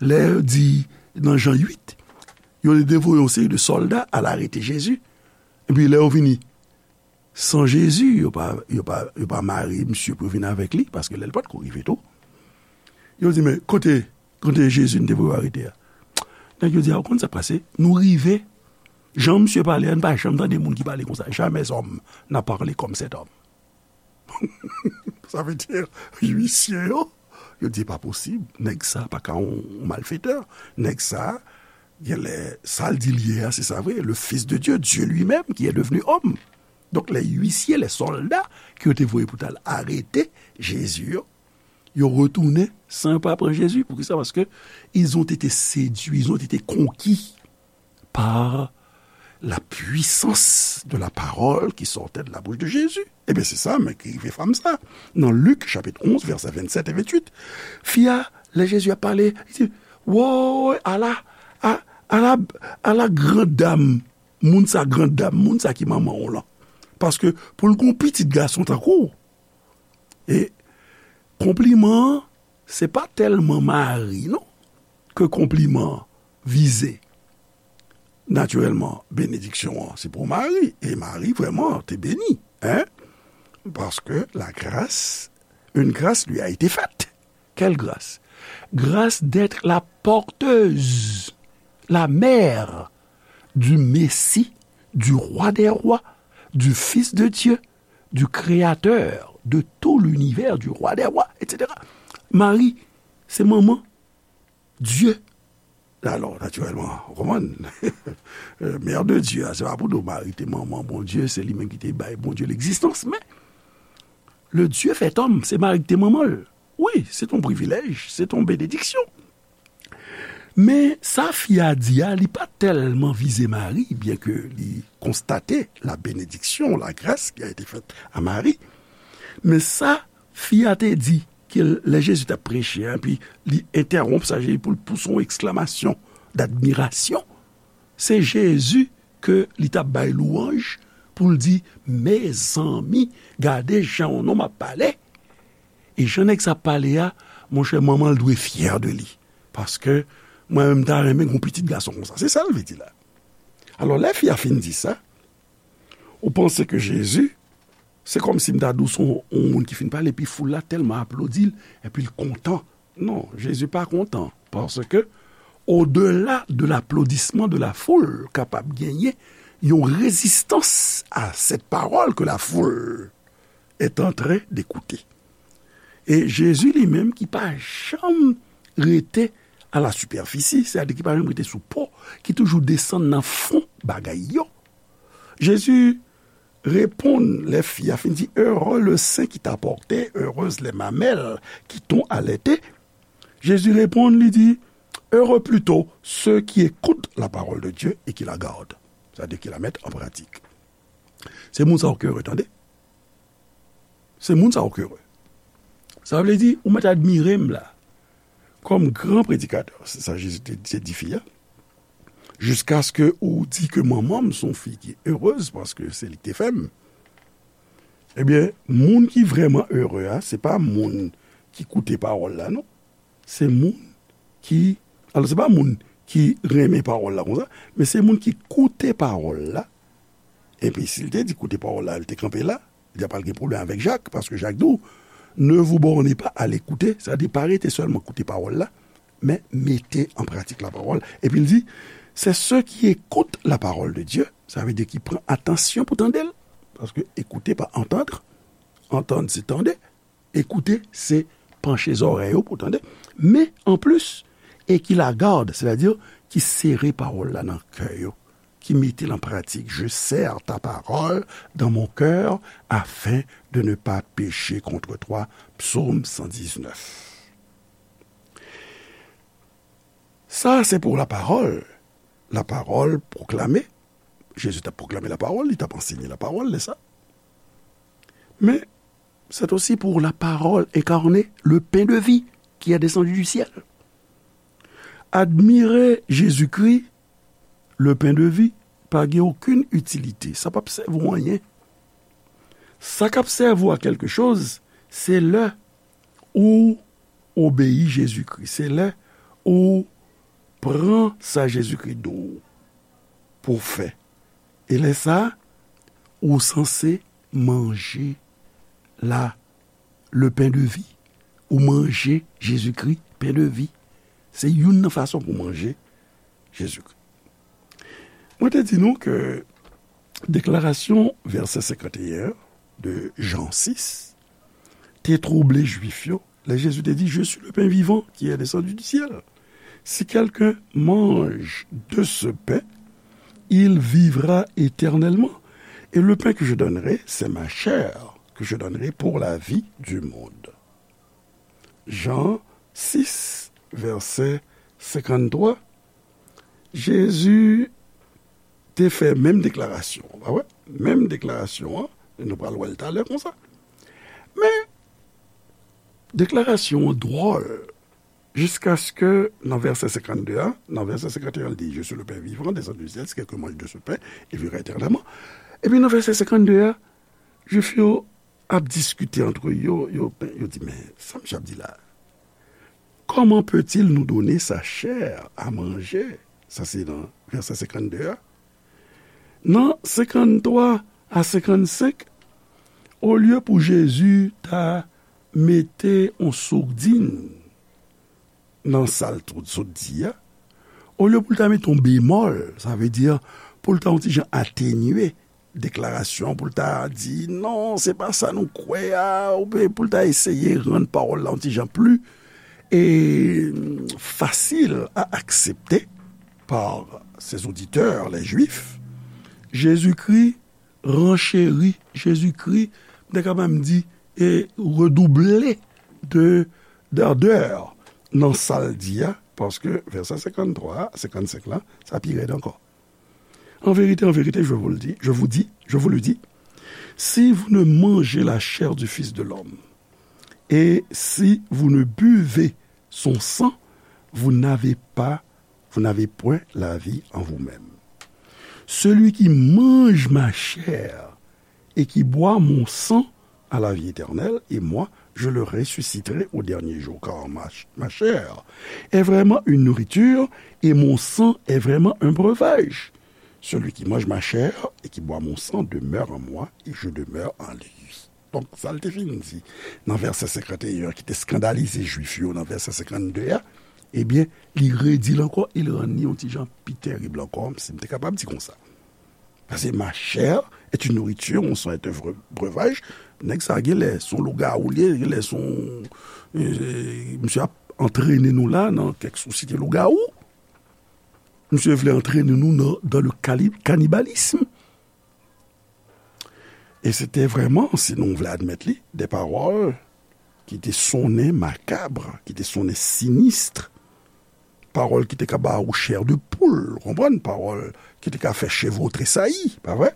lè yo di nan Jan uit, yo te voye yon seri de sòlda al arete Jezi. Epi lè yo vini san Jezi, yo pa, yo pa, yo pa mare misye pou yo vin avèk li, paske lè l pa t ko rive tou. Yo di, men kote, kote Jezi n te voye arete a? Nèg yo di, a, ou konn sa k pase? Nou rive, jan misye pale a, n pa janm tande moun ki pale konsa. Jamais homme n'a parlé comme cet homme. Sa vle di, inisye yo, yo di, pa posib, nèg sa pa ka yon malfetè. Nèg sa, genlè, sa l di l ye a, se sa vre, le Fils de Dieu, Dieu lui-même, qui est devenu homme. Donk, lè inisye, lè sòlda ke yo te voye pou t al arete Jezi yo, yo retounen san yo pa pran Jezi. Poukisa? Paske ils ont été séduits, ils ont été conquis par la puissance de la parole qui sortait de la bouche de Jésus. Ebyen, se sa menm ki rive fanm sa. Nan Lik, chapit onz, vèsè vennsèt e venntuit, fi a, lè Jezi ap pale, li di, woy, ala, a, ala, ala gran dam, moun sa gran dam, moun sa ki manman w lan. Paske pou l gon pitit gason tankou w, e konpliman an, se pa tèlman Mari, non, ke konpliman an vize. Natirèlman, benediksyon an, se pou Mari. E Mari, vrèman, te beni, hein? Parce que la grâce, une grâce lui a été faite. Quelle grâce? Grâce d'être la porteuse, la mère du Messie, du Roi des rois, du Fils de Dieu, du Créateur de tout l'univers, du Roi des rois, et cetera. Mari, se manman Dye. Alò, natirèlman, ou konprann? Mère de Dieu, a, se pa pou di w Mari te manman Bondye, se li menm ki te bay Bondye legzistans, men le Dieu fait homme, se Mari ki te manman l. Wi, se t on privilèj, se t on benediksyon. Men sa fi a di a, li pa tèlman vize Mari, byen ke li konstate la bénédiction, la grâce qui a été faite à Marie. Men sa fi a te di, ke lè Jezi t ap preche a, epi li entèwonp sa Jezi pou l pouse yon eksklamasyon dadmirasyon, se Jezi ke li t ap bay lwanj pou l di, mezanmi, gade jan yon nonm ap pale. E jan nèg sa ap pale a, monchè, manman l dwe fyè de li. Paske mwen menm, m ta renmen gen yon pitit gason konsa. Se sa l vle di la. Alò, lè fi a fin di sa, ou panse ke Jezi, se kòmsi m ta di w se yon, yon moun ki fin pale, epi foul la tèlman aplodi l, epi l kontan. Non, Jezi pa kontan, paske au-delà de l'applaudissement de la foule, kapab genyen yon rezistans à cette parole que la foule est en train d'écouter. E Jezi li menm ki pa janm rete à la superficie, sètadi ki pa janm rete sou po, ki toujou desann nan fon bagay yo. Jezi reponn lè fi a fin di, heureux le sein qui t'a porté, heureuses les mamelles qui t'ont allaité. Jezi reponn, li di, heureux plutôt ceux qui écoutent la parole de Dieu et qui la gardent. Sètadi ki la mèt an pratik. Se moun sa yo ki ere, tande. Se moun sa yo ki ere. Sa vle di, ou mèt admire m la, kòm gran predikatè, se sa Jezi te, te di fi a, jiskaske ou di ke manman m se yon fi ki erez, paske se li ki te fè m. Ebyen, moun ki vrèman ere a, se pa moun ki koute pawòl la, non. Se moun ki, alò, se pa moun ki renmen pawòl la konsa, men se moun ki koute pawòl la. Epi, si l te di koute pawòl la, l te kanpe la, li ta pral gen pwoblèm avèk Jak, paske Jak di w, ne vous bornez pas à l'écouter, sètadi pa rete sèlman koute pawòl la, men mete an pratik la parole. Epi l di, C'est ceux qui écoutent la parole de Dieu, sa vle di ki pran atansyon pou tande l. Paske écouter pa entendre, entendre se tande, écouter se panche zòrèy ou pou tande. Men anplis, et qui la gardent, sètadi ki sere pawòl la nan kè yo, ki mete l an pratik. Je serre ta parole dans mon cœur afin de ne pas pécher contre toi. Psaume cent dix-neuf. Sa se pou lapawòl. Lapawòl pwoklame. Jezi t ap pwoklame lapawòl, li t ap ansenye lapawòl, n'est-ce pas? Men, c'est aussi pour la parole incarnée, le pain de vie qui est descendu du ciel. Admire Jezikri, le pain de vie, pa gen okenn itilite. Sa p ap sèvi w anyen. Sa k ap sèvi w a kèlke choz, se lè ou obeyi Jezikri. Se lè ou pran sa Jezikri di w pou w fè. E lè sa a, ou sanse manje la, le pain de vie. Ou manje Jezikri, pain de vie. Se youn nan fason pou manje Jezikri. Mwen te di nou ke deklarasyon vèsè senkanteyen de Jan sis te twouble Jwif yo lè Jezi te di, Je suis le pain vivant qui est descendu du ciel. Si quelqu'un mange de ce pain, il vivra éternellement. Et le pain que je donnerai, c'est ma chair que je donnerai pour la vie du monde. Jan sis, vèsè senkanntwa, Jezi te fè menm deklarasyon an, pa vre? Menm deklarasyon an, e nou pral wè l talè konsa. Men, deklarasyon an dwòl, jiskaske nan vèsè senkannde a, nan vèsè senkanteyen, li di, Je suis le pain vivant, descendu du ciel, si quelqu'un mange de ce pain, il vivra éternellement. Epi nan vèsè senkanndde a, Jwif yo ap diskite antre yo, yo, yo di, Men, sa misye ap di la? Comment peut-il nous donner sa chair à manger? Sa se nan vèsè senkanndde a. Nan senkanntwa a senkannsenk, olye pou Jezi ta mete yon sourdin nan sa l t-, sot di a, olye pou l ta mete yon bemòl, sa vle di pou l ta yon ti jan atenye deklarasyon, pou l ta di, Non, se pa sa nou kwè a, oubyen pou l ta eseye rann pawòl la yon ti jan pli, e, fasil a aksepte par ses auditeurs, les Juifs, Jezikri rencheri, Jezikri, m ta ka menm di, e redouble de, d'ardeur nan sa l di a, paske vèsè senkanntwa a, senkannsenk la, sa pi rèd ankò. En vérité, en vérité, je vous le dis, je vous dis, je vous le dis, si vous ne mangez la chair du Fils de l'homme, et si vous ne buvez son sang, vous n'avez pas, vous n'avez point la vie en vous-même. Celui qui mange ma chair et qui boit mon sang a la vie éternelle, et moi, je le ressusciterai au dernier jour, car ma, ch-, ma chair est vraiment une nourriture, et mon sang est vraiment un breuvage. Celui qui mange ma chair et qui boit mon sang demeure en moi, et je demeure en lui. Donk, sa l te fin di nan vèsè senkanteyen an ki te eskandalize Jwif yo nan vèsè senkanndde a, ebyen, li redi l ankò e l rann li yon ti jan pi terib ankò, si m te kapab di konsa. Paske ma chair est une nourriture, mon sang est un bre-, breuvage. Nèg sa genlè se yon lougawou li ye, genlè se yon, e, misye ap antrene nou la nan kèk sosyete lougawou. Misye vle antrene nou nan, dans le cali-, cannibalisme. E se te vrèman, si nou vle admèt li, de pawòl ki te sonnen makab, ki te sonnen sinis, pawòl ki te ka ba ou chair de poule, ou konprann? Pawòl ki te ka fè cheve w tresayi, pa vre?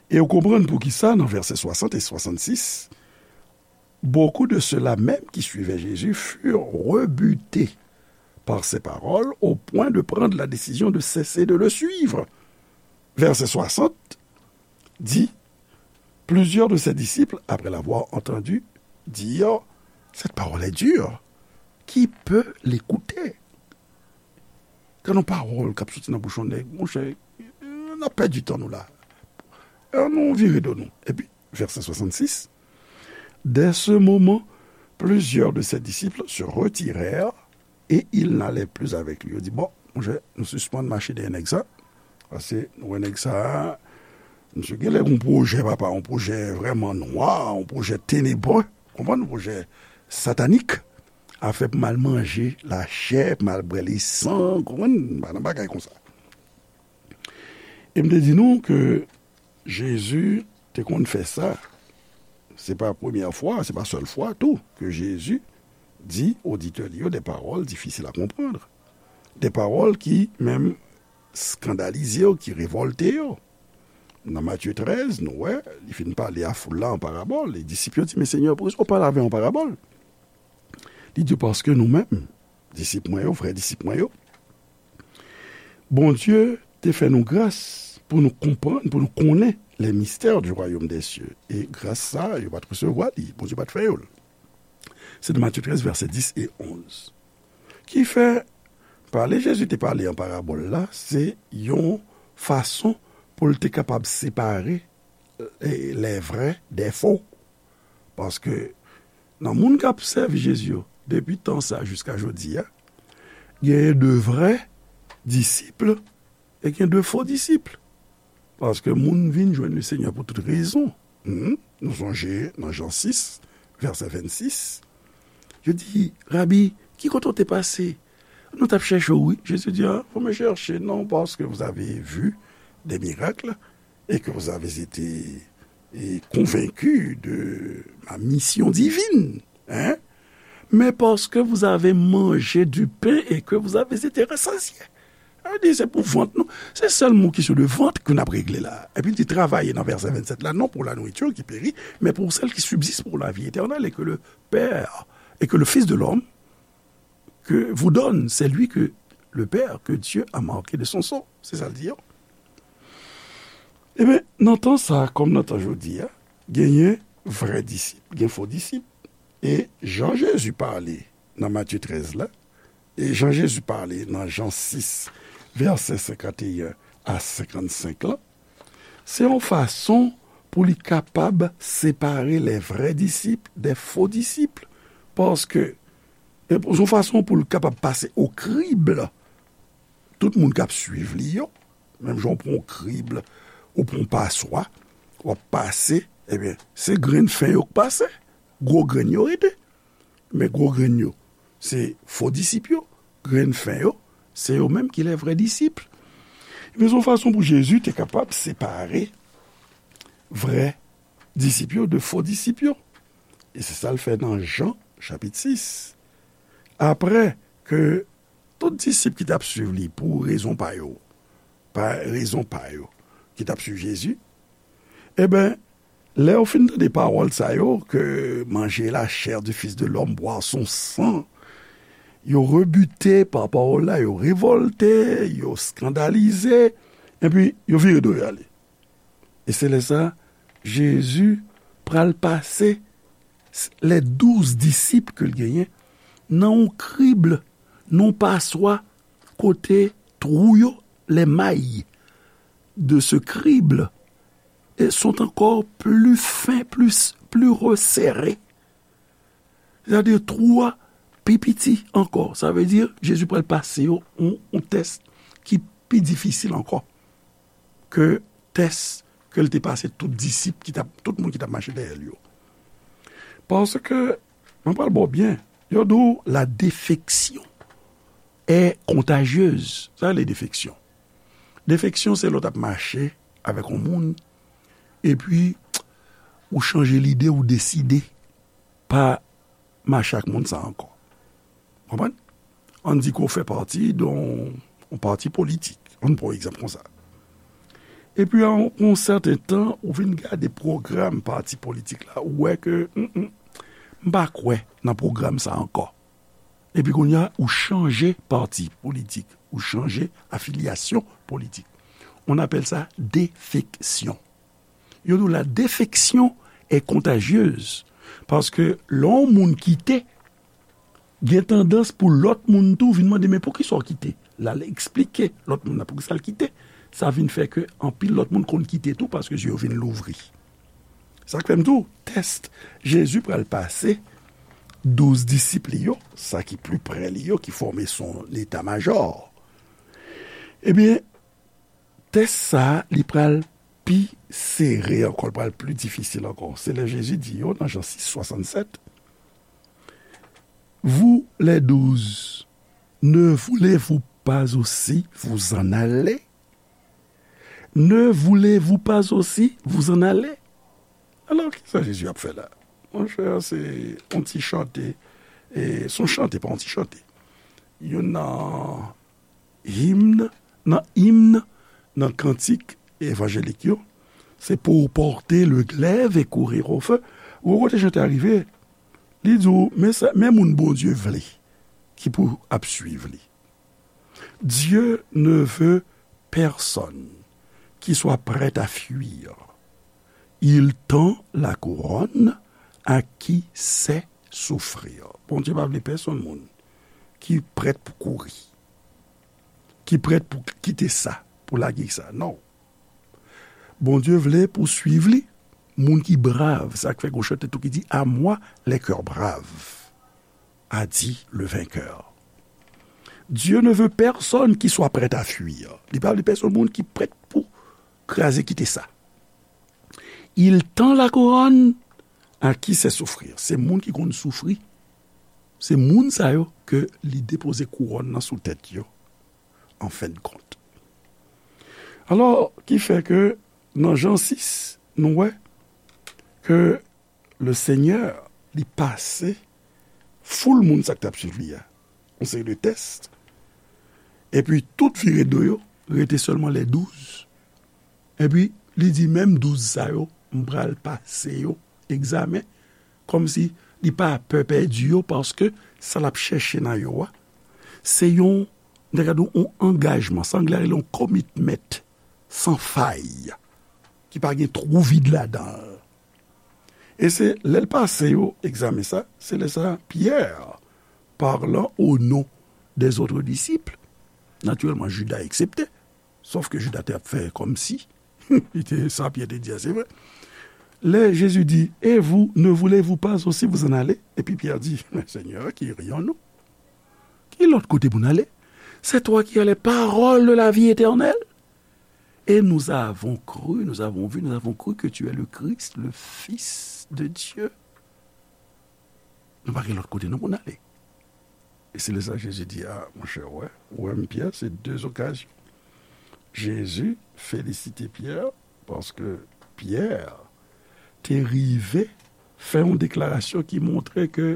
E ou konprann poukisa nan vèsè swasant e swasannsis, Beaucoup de ceux-là même qui suivaient Jésus furent rebutés par ces paroles au point de prendre la décision de cesser de le suivre. Verset soixante dit, Plusieurs de ses disciples, après l'avoir entendu, dirent, Cette parole est dure. Qui peut l'écouter? Gade yon pawòl k ap soti nan bouch yon nèg, monchè, n ap pèdi tan nou la. Ann nou vire do nou. Epi, vèsè swasannsis, Dès ce moment, plusieurs de ses disciples se retirèrent et ils n'allaient plus avec lui. Yo di, bon, Monchè, nou sispann mache dèyè nèg sa. Paske nou wè nèg sa a, misye genlè gen yon pwojè, papa, yon pwojè vrèman nwa, yon pwojè tenebre, konprann, yon pwojè satanik. Afè pou m al manje lachè, pou m al bwè lesan, konprann, pa nan bagay konsa. E m te di nou ke Jezi te konn fè sa. Se pa premyè fwa, se pa sèl fwa tou ke Jezi di oditè li yo de pawòl difisil a konprann. De pawòl ki menm eskandalize yo, ki revòlte yo. Nan Matye trèz, nou wè, li fin pale a foul la an parabòl. E disip yo di, "Men Senyè, poukisa w pale avè yo an parabòl?" Li di, "Paske nou menm, disip mwen yo, vrè disip mwen yo, Bondye te fè nou gras pou nou konprann, pou nou konnen les mystères du royaume des cieux." E gras sa, yo pa t resevwa li, Bondye pa t fè yo l. Se nan Matye trèz, vèsè dis e onz. Ki fè, pale Jezi te pale an parabòl la, se yon fason pou l te kapab separe, e, les vrais des faux. Paske nan moun k ap sèvi Jezi yo, depi tan sa jiska jodi a, genyen de vrè disip e gen de fo disip. Paske moun vin jwenn Lesenyè pou tout rezon. Hmm? Nou sonje nan Jan sis, vèsè vennsis, yo di, "Rabi, ki kote w te pase? Nou t ap chèche w, wi." Jezi di, "Ah, vous me cherchez, non pas que vous avez vu des miracles et que vous avez été, et convaincu de ma mission divine, hein, mais parce que vous avez mangé du pain et que vous avez été rassasiés." Sa vle di, se pou vant nou. Se sèl moun kesyon de vant ke n ap regle la. Epi li di, travaillez, nan vèsè vennsèt la, non pour la nourriture qui périt, mais pour celle qui subsiste pour la vie éternelle et que le Père, et que le Fils de l'homme que vous donne, c'est lui que le Père, que Dieu a marqué de son sang. Se sa l di yo. Ebyen, nan tan sa, kòm nan tan jodi a, genyen vrè disip, gen fo disip. E jan Jezi pale nan Matye trèz la, e jan Jezi pale nan Jan sis, vèsè senkanteyen a senkannsenk la, se yon fason pou li kapab separe les vrais disciples des faux disciples. Paske, e, se yon fason pou li kapab pase o krib tout moun k ap swiv li yo. Menm jan w pran yon krib, ou pran yon paswa, w ap pase, ebyen, se grenn fen yo k pase, gwo grenn yo rete. Men gwo grenn yo, se fo disip yo, grenn fen yo, se yo menm ki les vrais disciples. Ebyen, se yon fason pou Jezi te kapab separe vrè disip yo de fo disip yo. E se sa l fè nan Jan, chapit sis. Apre ke tout disip ki t ap swiv li pou rezon pa yo, pa rezon pa yo, ki t ap swiv Jezi, ebyen, lè yo fin tande pawòl sa yo, ke manger la chair du Fils de l'homme, boire son sang, yo rebute pa pawòl la, yo revòlte, yo eskandalize, epi yo vire do yo ale. E se lè sa, Jezi pral pase s-, les douze disciples ke l genyen nan yon krib, nan yon paswa, kote twou yo, les mailles de ce crible, e sont encore plus fins, plus, plus resserrées. Sètadi twou a pi piti ankò. Sa vle di, Jezi pral pase yo yon, yon tès ki pi difisil ankò ke tès ke l te pase tout disip ki t ap, tout moun ki t ap mache dèyè l yo. Paske, mwen pral ba w byen, yo di w la défection est contagieuse. Sa rele defeksyon. Defeksyon, se lè w t ap mache avèk yon moun, epi ou chanje lide, ou deside pa mache ak moun sa ankò. Konprann? Ann di ke w fè pati de yon, yon pati politik. Ann pran yon egzanp konsa. Epi, a yon, yon sèten tan, ou vin gade pwogram pati politik la, ou wè ke, mm, mm, m pa kwè nan pwogram sa ankò. Epi kounye a, ou chanje pati politik, ou chanje afilyasyon politik. On appelle ça défection. Yo di w la défection est contagieuse. Paske lè yon moun kite, gen tandans pou lòt moun tou vin mande, "Men poukisa w kite?" L al eksplike lòt moun nan poukisa l kite. Sa vin fè ke anpil lòt moun konn kite tou paske zye yo vin louvri. Sa k fè m di w, tès Jezi pral pase douz disip li yo, sa ki pli pre li yo, ki fòme son eta majò. Ebyen, tès sa a, li pral pi sere ankò, li pral pli difisil ankò. Se lè Jezi di yo, nan Jan sis swasannsèt, Vous les douze, ne voulez-vous pas aussi vous en aller? Ne voulez-vous pas aussi vous en aller? Alò, kisa Jezi ap fè la? Monchè, se yon ti chante, e, se yon chante, pa yon ti chante. Youn nan himn, nan himn, nan kantik evanjelik yo, se pour porter le glaive et courir au feu. Ou kote chante a rive, li di w, men sa, men moun Bondye vle, ki pou ap swiv li. Dieu ne veut personne qui soit prêt à fuir. Il tend la couronne à qui sait souffrir. Bondye pa vle pèsonn moun ki prèt pou kouri, ki prèt pou kite sa, pou lage sa. Non. Bondye vle pou swiv li, moun ki brav. Sa k fè gon chante tou ki di, À moi les cœurs braves, a dit le vainqueur. Dieu ne veut personne qui soit prêt à fuir. Li pa vle pèsonn moun ki prèt pou kraze kite sa. Il tend la couronne à qui sait souffrir. Se moun ki konn soufri. Se moun sa yo ke li depoze kouwòn nan sou tèt yo, an fen de kont. Alò, ki fè ke nan Jan sis, nou wè ke le Senyè, li pase foul moun sa k t ap swiv li a, yon seri de tès. Epi tout vire do yo, rete sèlman les douze. Epi li di, menm douz sa yo, m pral pase yo egzamen, kòmsi li pa pè pèdi yo, paske sa l ap chèche nan yo a, se yon, n ta ka di w, yon angajman, sa anglè a rele yon commitment, san fay, ki pa gen twou vid ladan l. E se lè l pase yo egzamen sa, se lè sa Pyè, parlant au nom des autres disciples, natirèlman Jida eksepte, sòf ke Jida te ap fè kòmsi li te, sa Pyè te di a, se vre. Lè Jezi di, Et vous, ne voulez-vous pas aussi vous en aller? Epi Pyè di, Men Senyè, ki iryon nou? Ki lòt kote pou n ale? C'est toi qui as les paroles de la vie éternelle. Et nous avons cru, nous avons vu, nous avons cru que tu es le Christ, le Fils de Dieu. Nou pa gen lòt kote non pou n ale. E se lè sa Jezi di, a, monchè, w wè, ou wè m Pyè, se de okazyon. Jezi felisite Pyè, paske Pyè te rive fè yon deklarasyon ki montre ke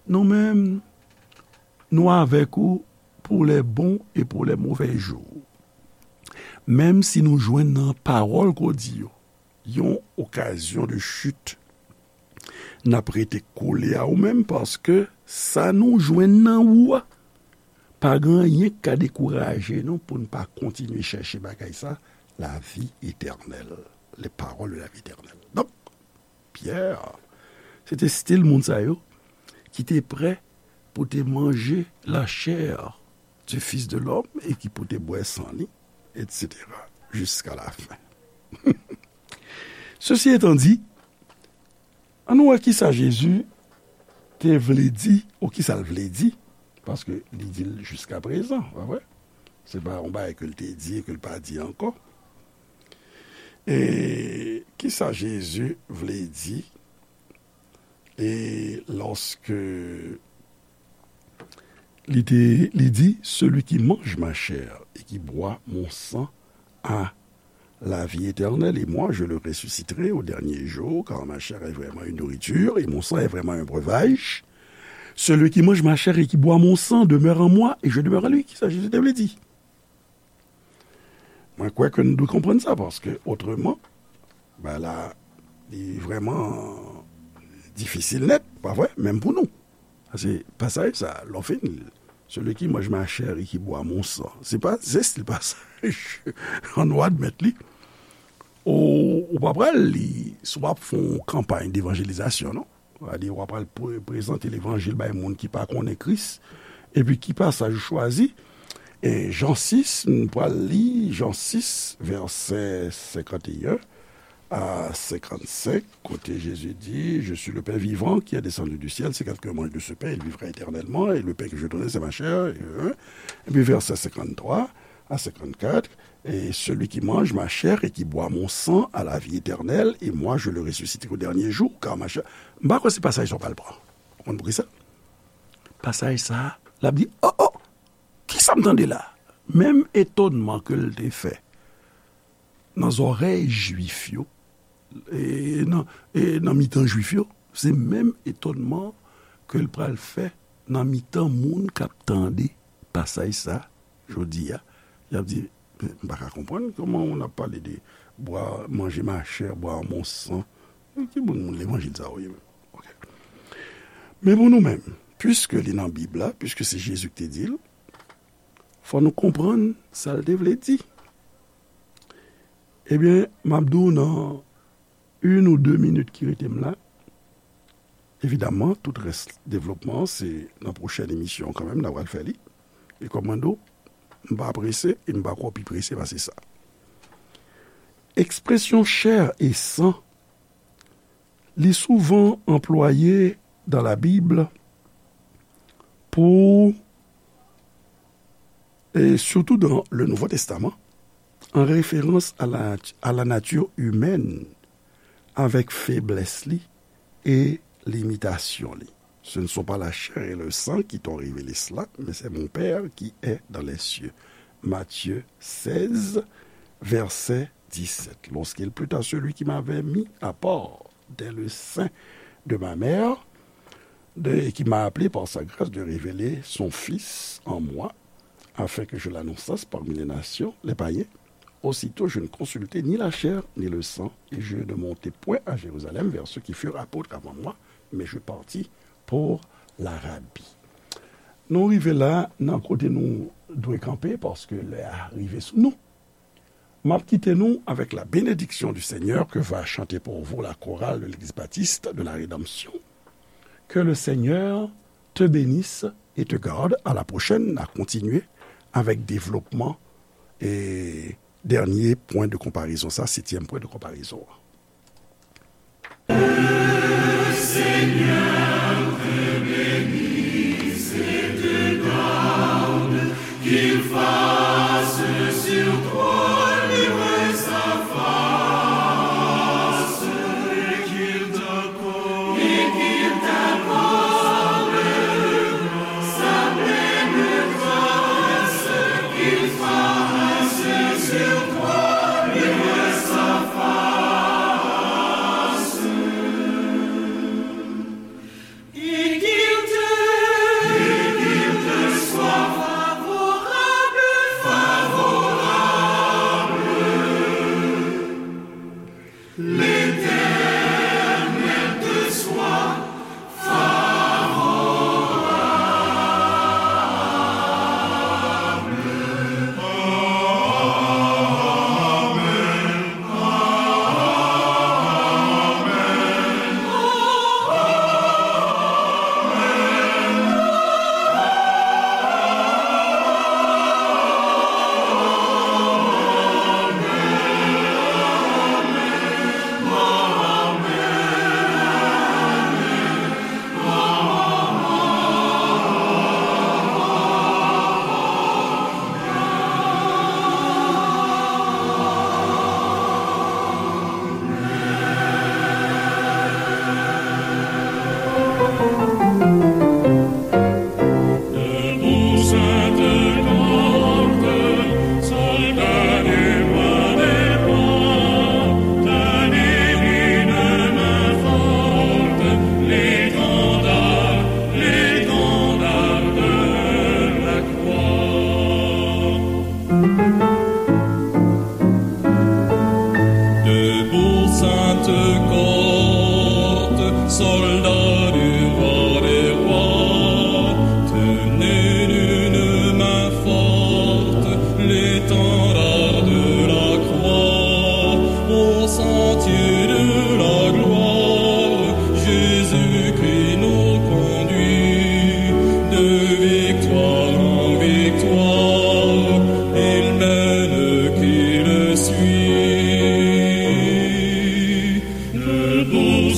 nou menm, nou avèk ou pour les bons et pour les mauvais jours. Menm si nou jwenn nan pawòl ke w di yo yon okazyon de chute, n ap rete kole a ou menm, paske sa nou jwenn nan ou a, pa gen anyen k ka dekouraje nou pou n pa kontinye chèche bagay sa, la vie éternelle, les paroles de la vie éternelle. Donk, Pyè, se te stil moun sa yo ki te prè pou te manje la chair du Fils de l'homme e ki pou te bwè san li, et cetera, jusqu'à la fin. Ceci étant dit, ann wè kisa Jezi te vle di, ou kisa l vle di, paske li di l jiskaprezan, pa vre? Se pa yon bagay ke l te di e ke l pa di ankò. E kisa Jezi vle di? E lòske li te, li di, Celui qui mange ma chair et qui boit mon sang a la vie éternelle, et moi je le ressusciterai au dernier jour, car ma chair est vraiment une nourriture et mon sang est vraiment un breuvage. Celui qui mange ma chair et qui boit mon sang demeure en moi et je demeure en lui. Kisa Jezi te vle di? Mwen kwè ke nou dwe konprann sa, paske otreman, bagay la, li vrèman difisil nèt, pa vre? Menm pou nou. Paske pasaj sa, lè w fin li, Celui qui mange ma chair et qui boit mon sang, se pa zès li pasaj. Ann nou admèt li. Ou, ou pa pral li, si w ap fè yon kanpay devanjelizasyon, non? Sa di, w ap al pre-, prezante levanjil bay moun ki pa konnen Kris. Epi ki pasaj ou chwazi? E Jan sis, nou pral li Jan sis, vèsè senkanteyen a senkannsenk, kote Jezi di, Je suis le pain vivant qui est descendu du ciel. Si quelqu'un mange de ce pain, il vivra éternellement. Et le pain que je donne, c'est ma chair. Et, hein. Epi vèsè senkanntwa, À cinquante-quatre, et celui qui mange ma chair et qui boit mon sang a la vie éternelle, et moi je le ressusciterai au dernier jour, car ma chair. M pa kwè se pasaj sa w pral pran. Ou konn poukisa? Pasaj sa, l ap di, oh, oh, kisa m tande la? Menm etonnman ke l te fè nan zòrèy Jwif yo, e nan, e nan mitan Jwif yo, se menm etonnman ke l pral fè nan mitan moun k ap tande pasaj sa, jodi a, y ap di, "M pa ka konprann kòman on ap pale de bwa, manje ma chè, bwa mon san." Ki moun, moun levanjil sa yo ye menm? Ok. Men pou nou menm, piske li nan Bib la, piske se Jezi ki te di l, fò nou konprann sa l te vle di. Ebyen, m ap di w nan youn ou de minit ki rete m la. Evidamman, tout rès devlopman, se nan pwochèn emisyon kanmenm, n a pral fè li. E kòm mwen di w, m pa prese, e m pa kwè w pi prese pase sa. Ekspresyon chè e san, li souvan anplwaye dans la Bible pour, et surtout dans le Nouveau Testament, en référence à la, à la nature humaine, avec faiblesse li et limitation li. Ce ne sont pas la chair et le sang qui t'ont révélé cela, mais c'est mon Père qui est dans les cieux. Matthieu seize, verset dix-sept. Lorsqu'il plut à celui qui m'avait mis à part dès le sein de ma mère, de, et qui m'a appelé par sa grâce de révéler son Fils en moi, afin que je l'annonçasse parmi les nations, les païens, aussitôt je ne consultai ni la chair ni le sang, et je ne montai point à Jérusalem vers ceux qui furent apôtres avant moi, mais je partis pour l'Arabie. Nou rive la nan kote nou dwe kanpe, paske lè a rive sou nou. M ap kite nou avec la bénédiction du Seigneur que va chanter pour vous la chorale de l'Église baptiste de la Rédemption. Que le Seigneur te bénisse et te garde. À la prochaine, n a kontinye avèk devlopman e dènye pwen de konparezon, sa, setyèm pwen de konparezon an. Debout, sainte cohorte, soldats du roi des rois, tenez d'une main forte l'étendard de la croix, au sentier de la gloire, Jésus-Christ nous conduit, de victoire en victoire, il mène qui le suit. Debout,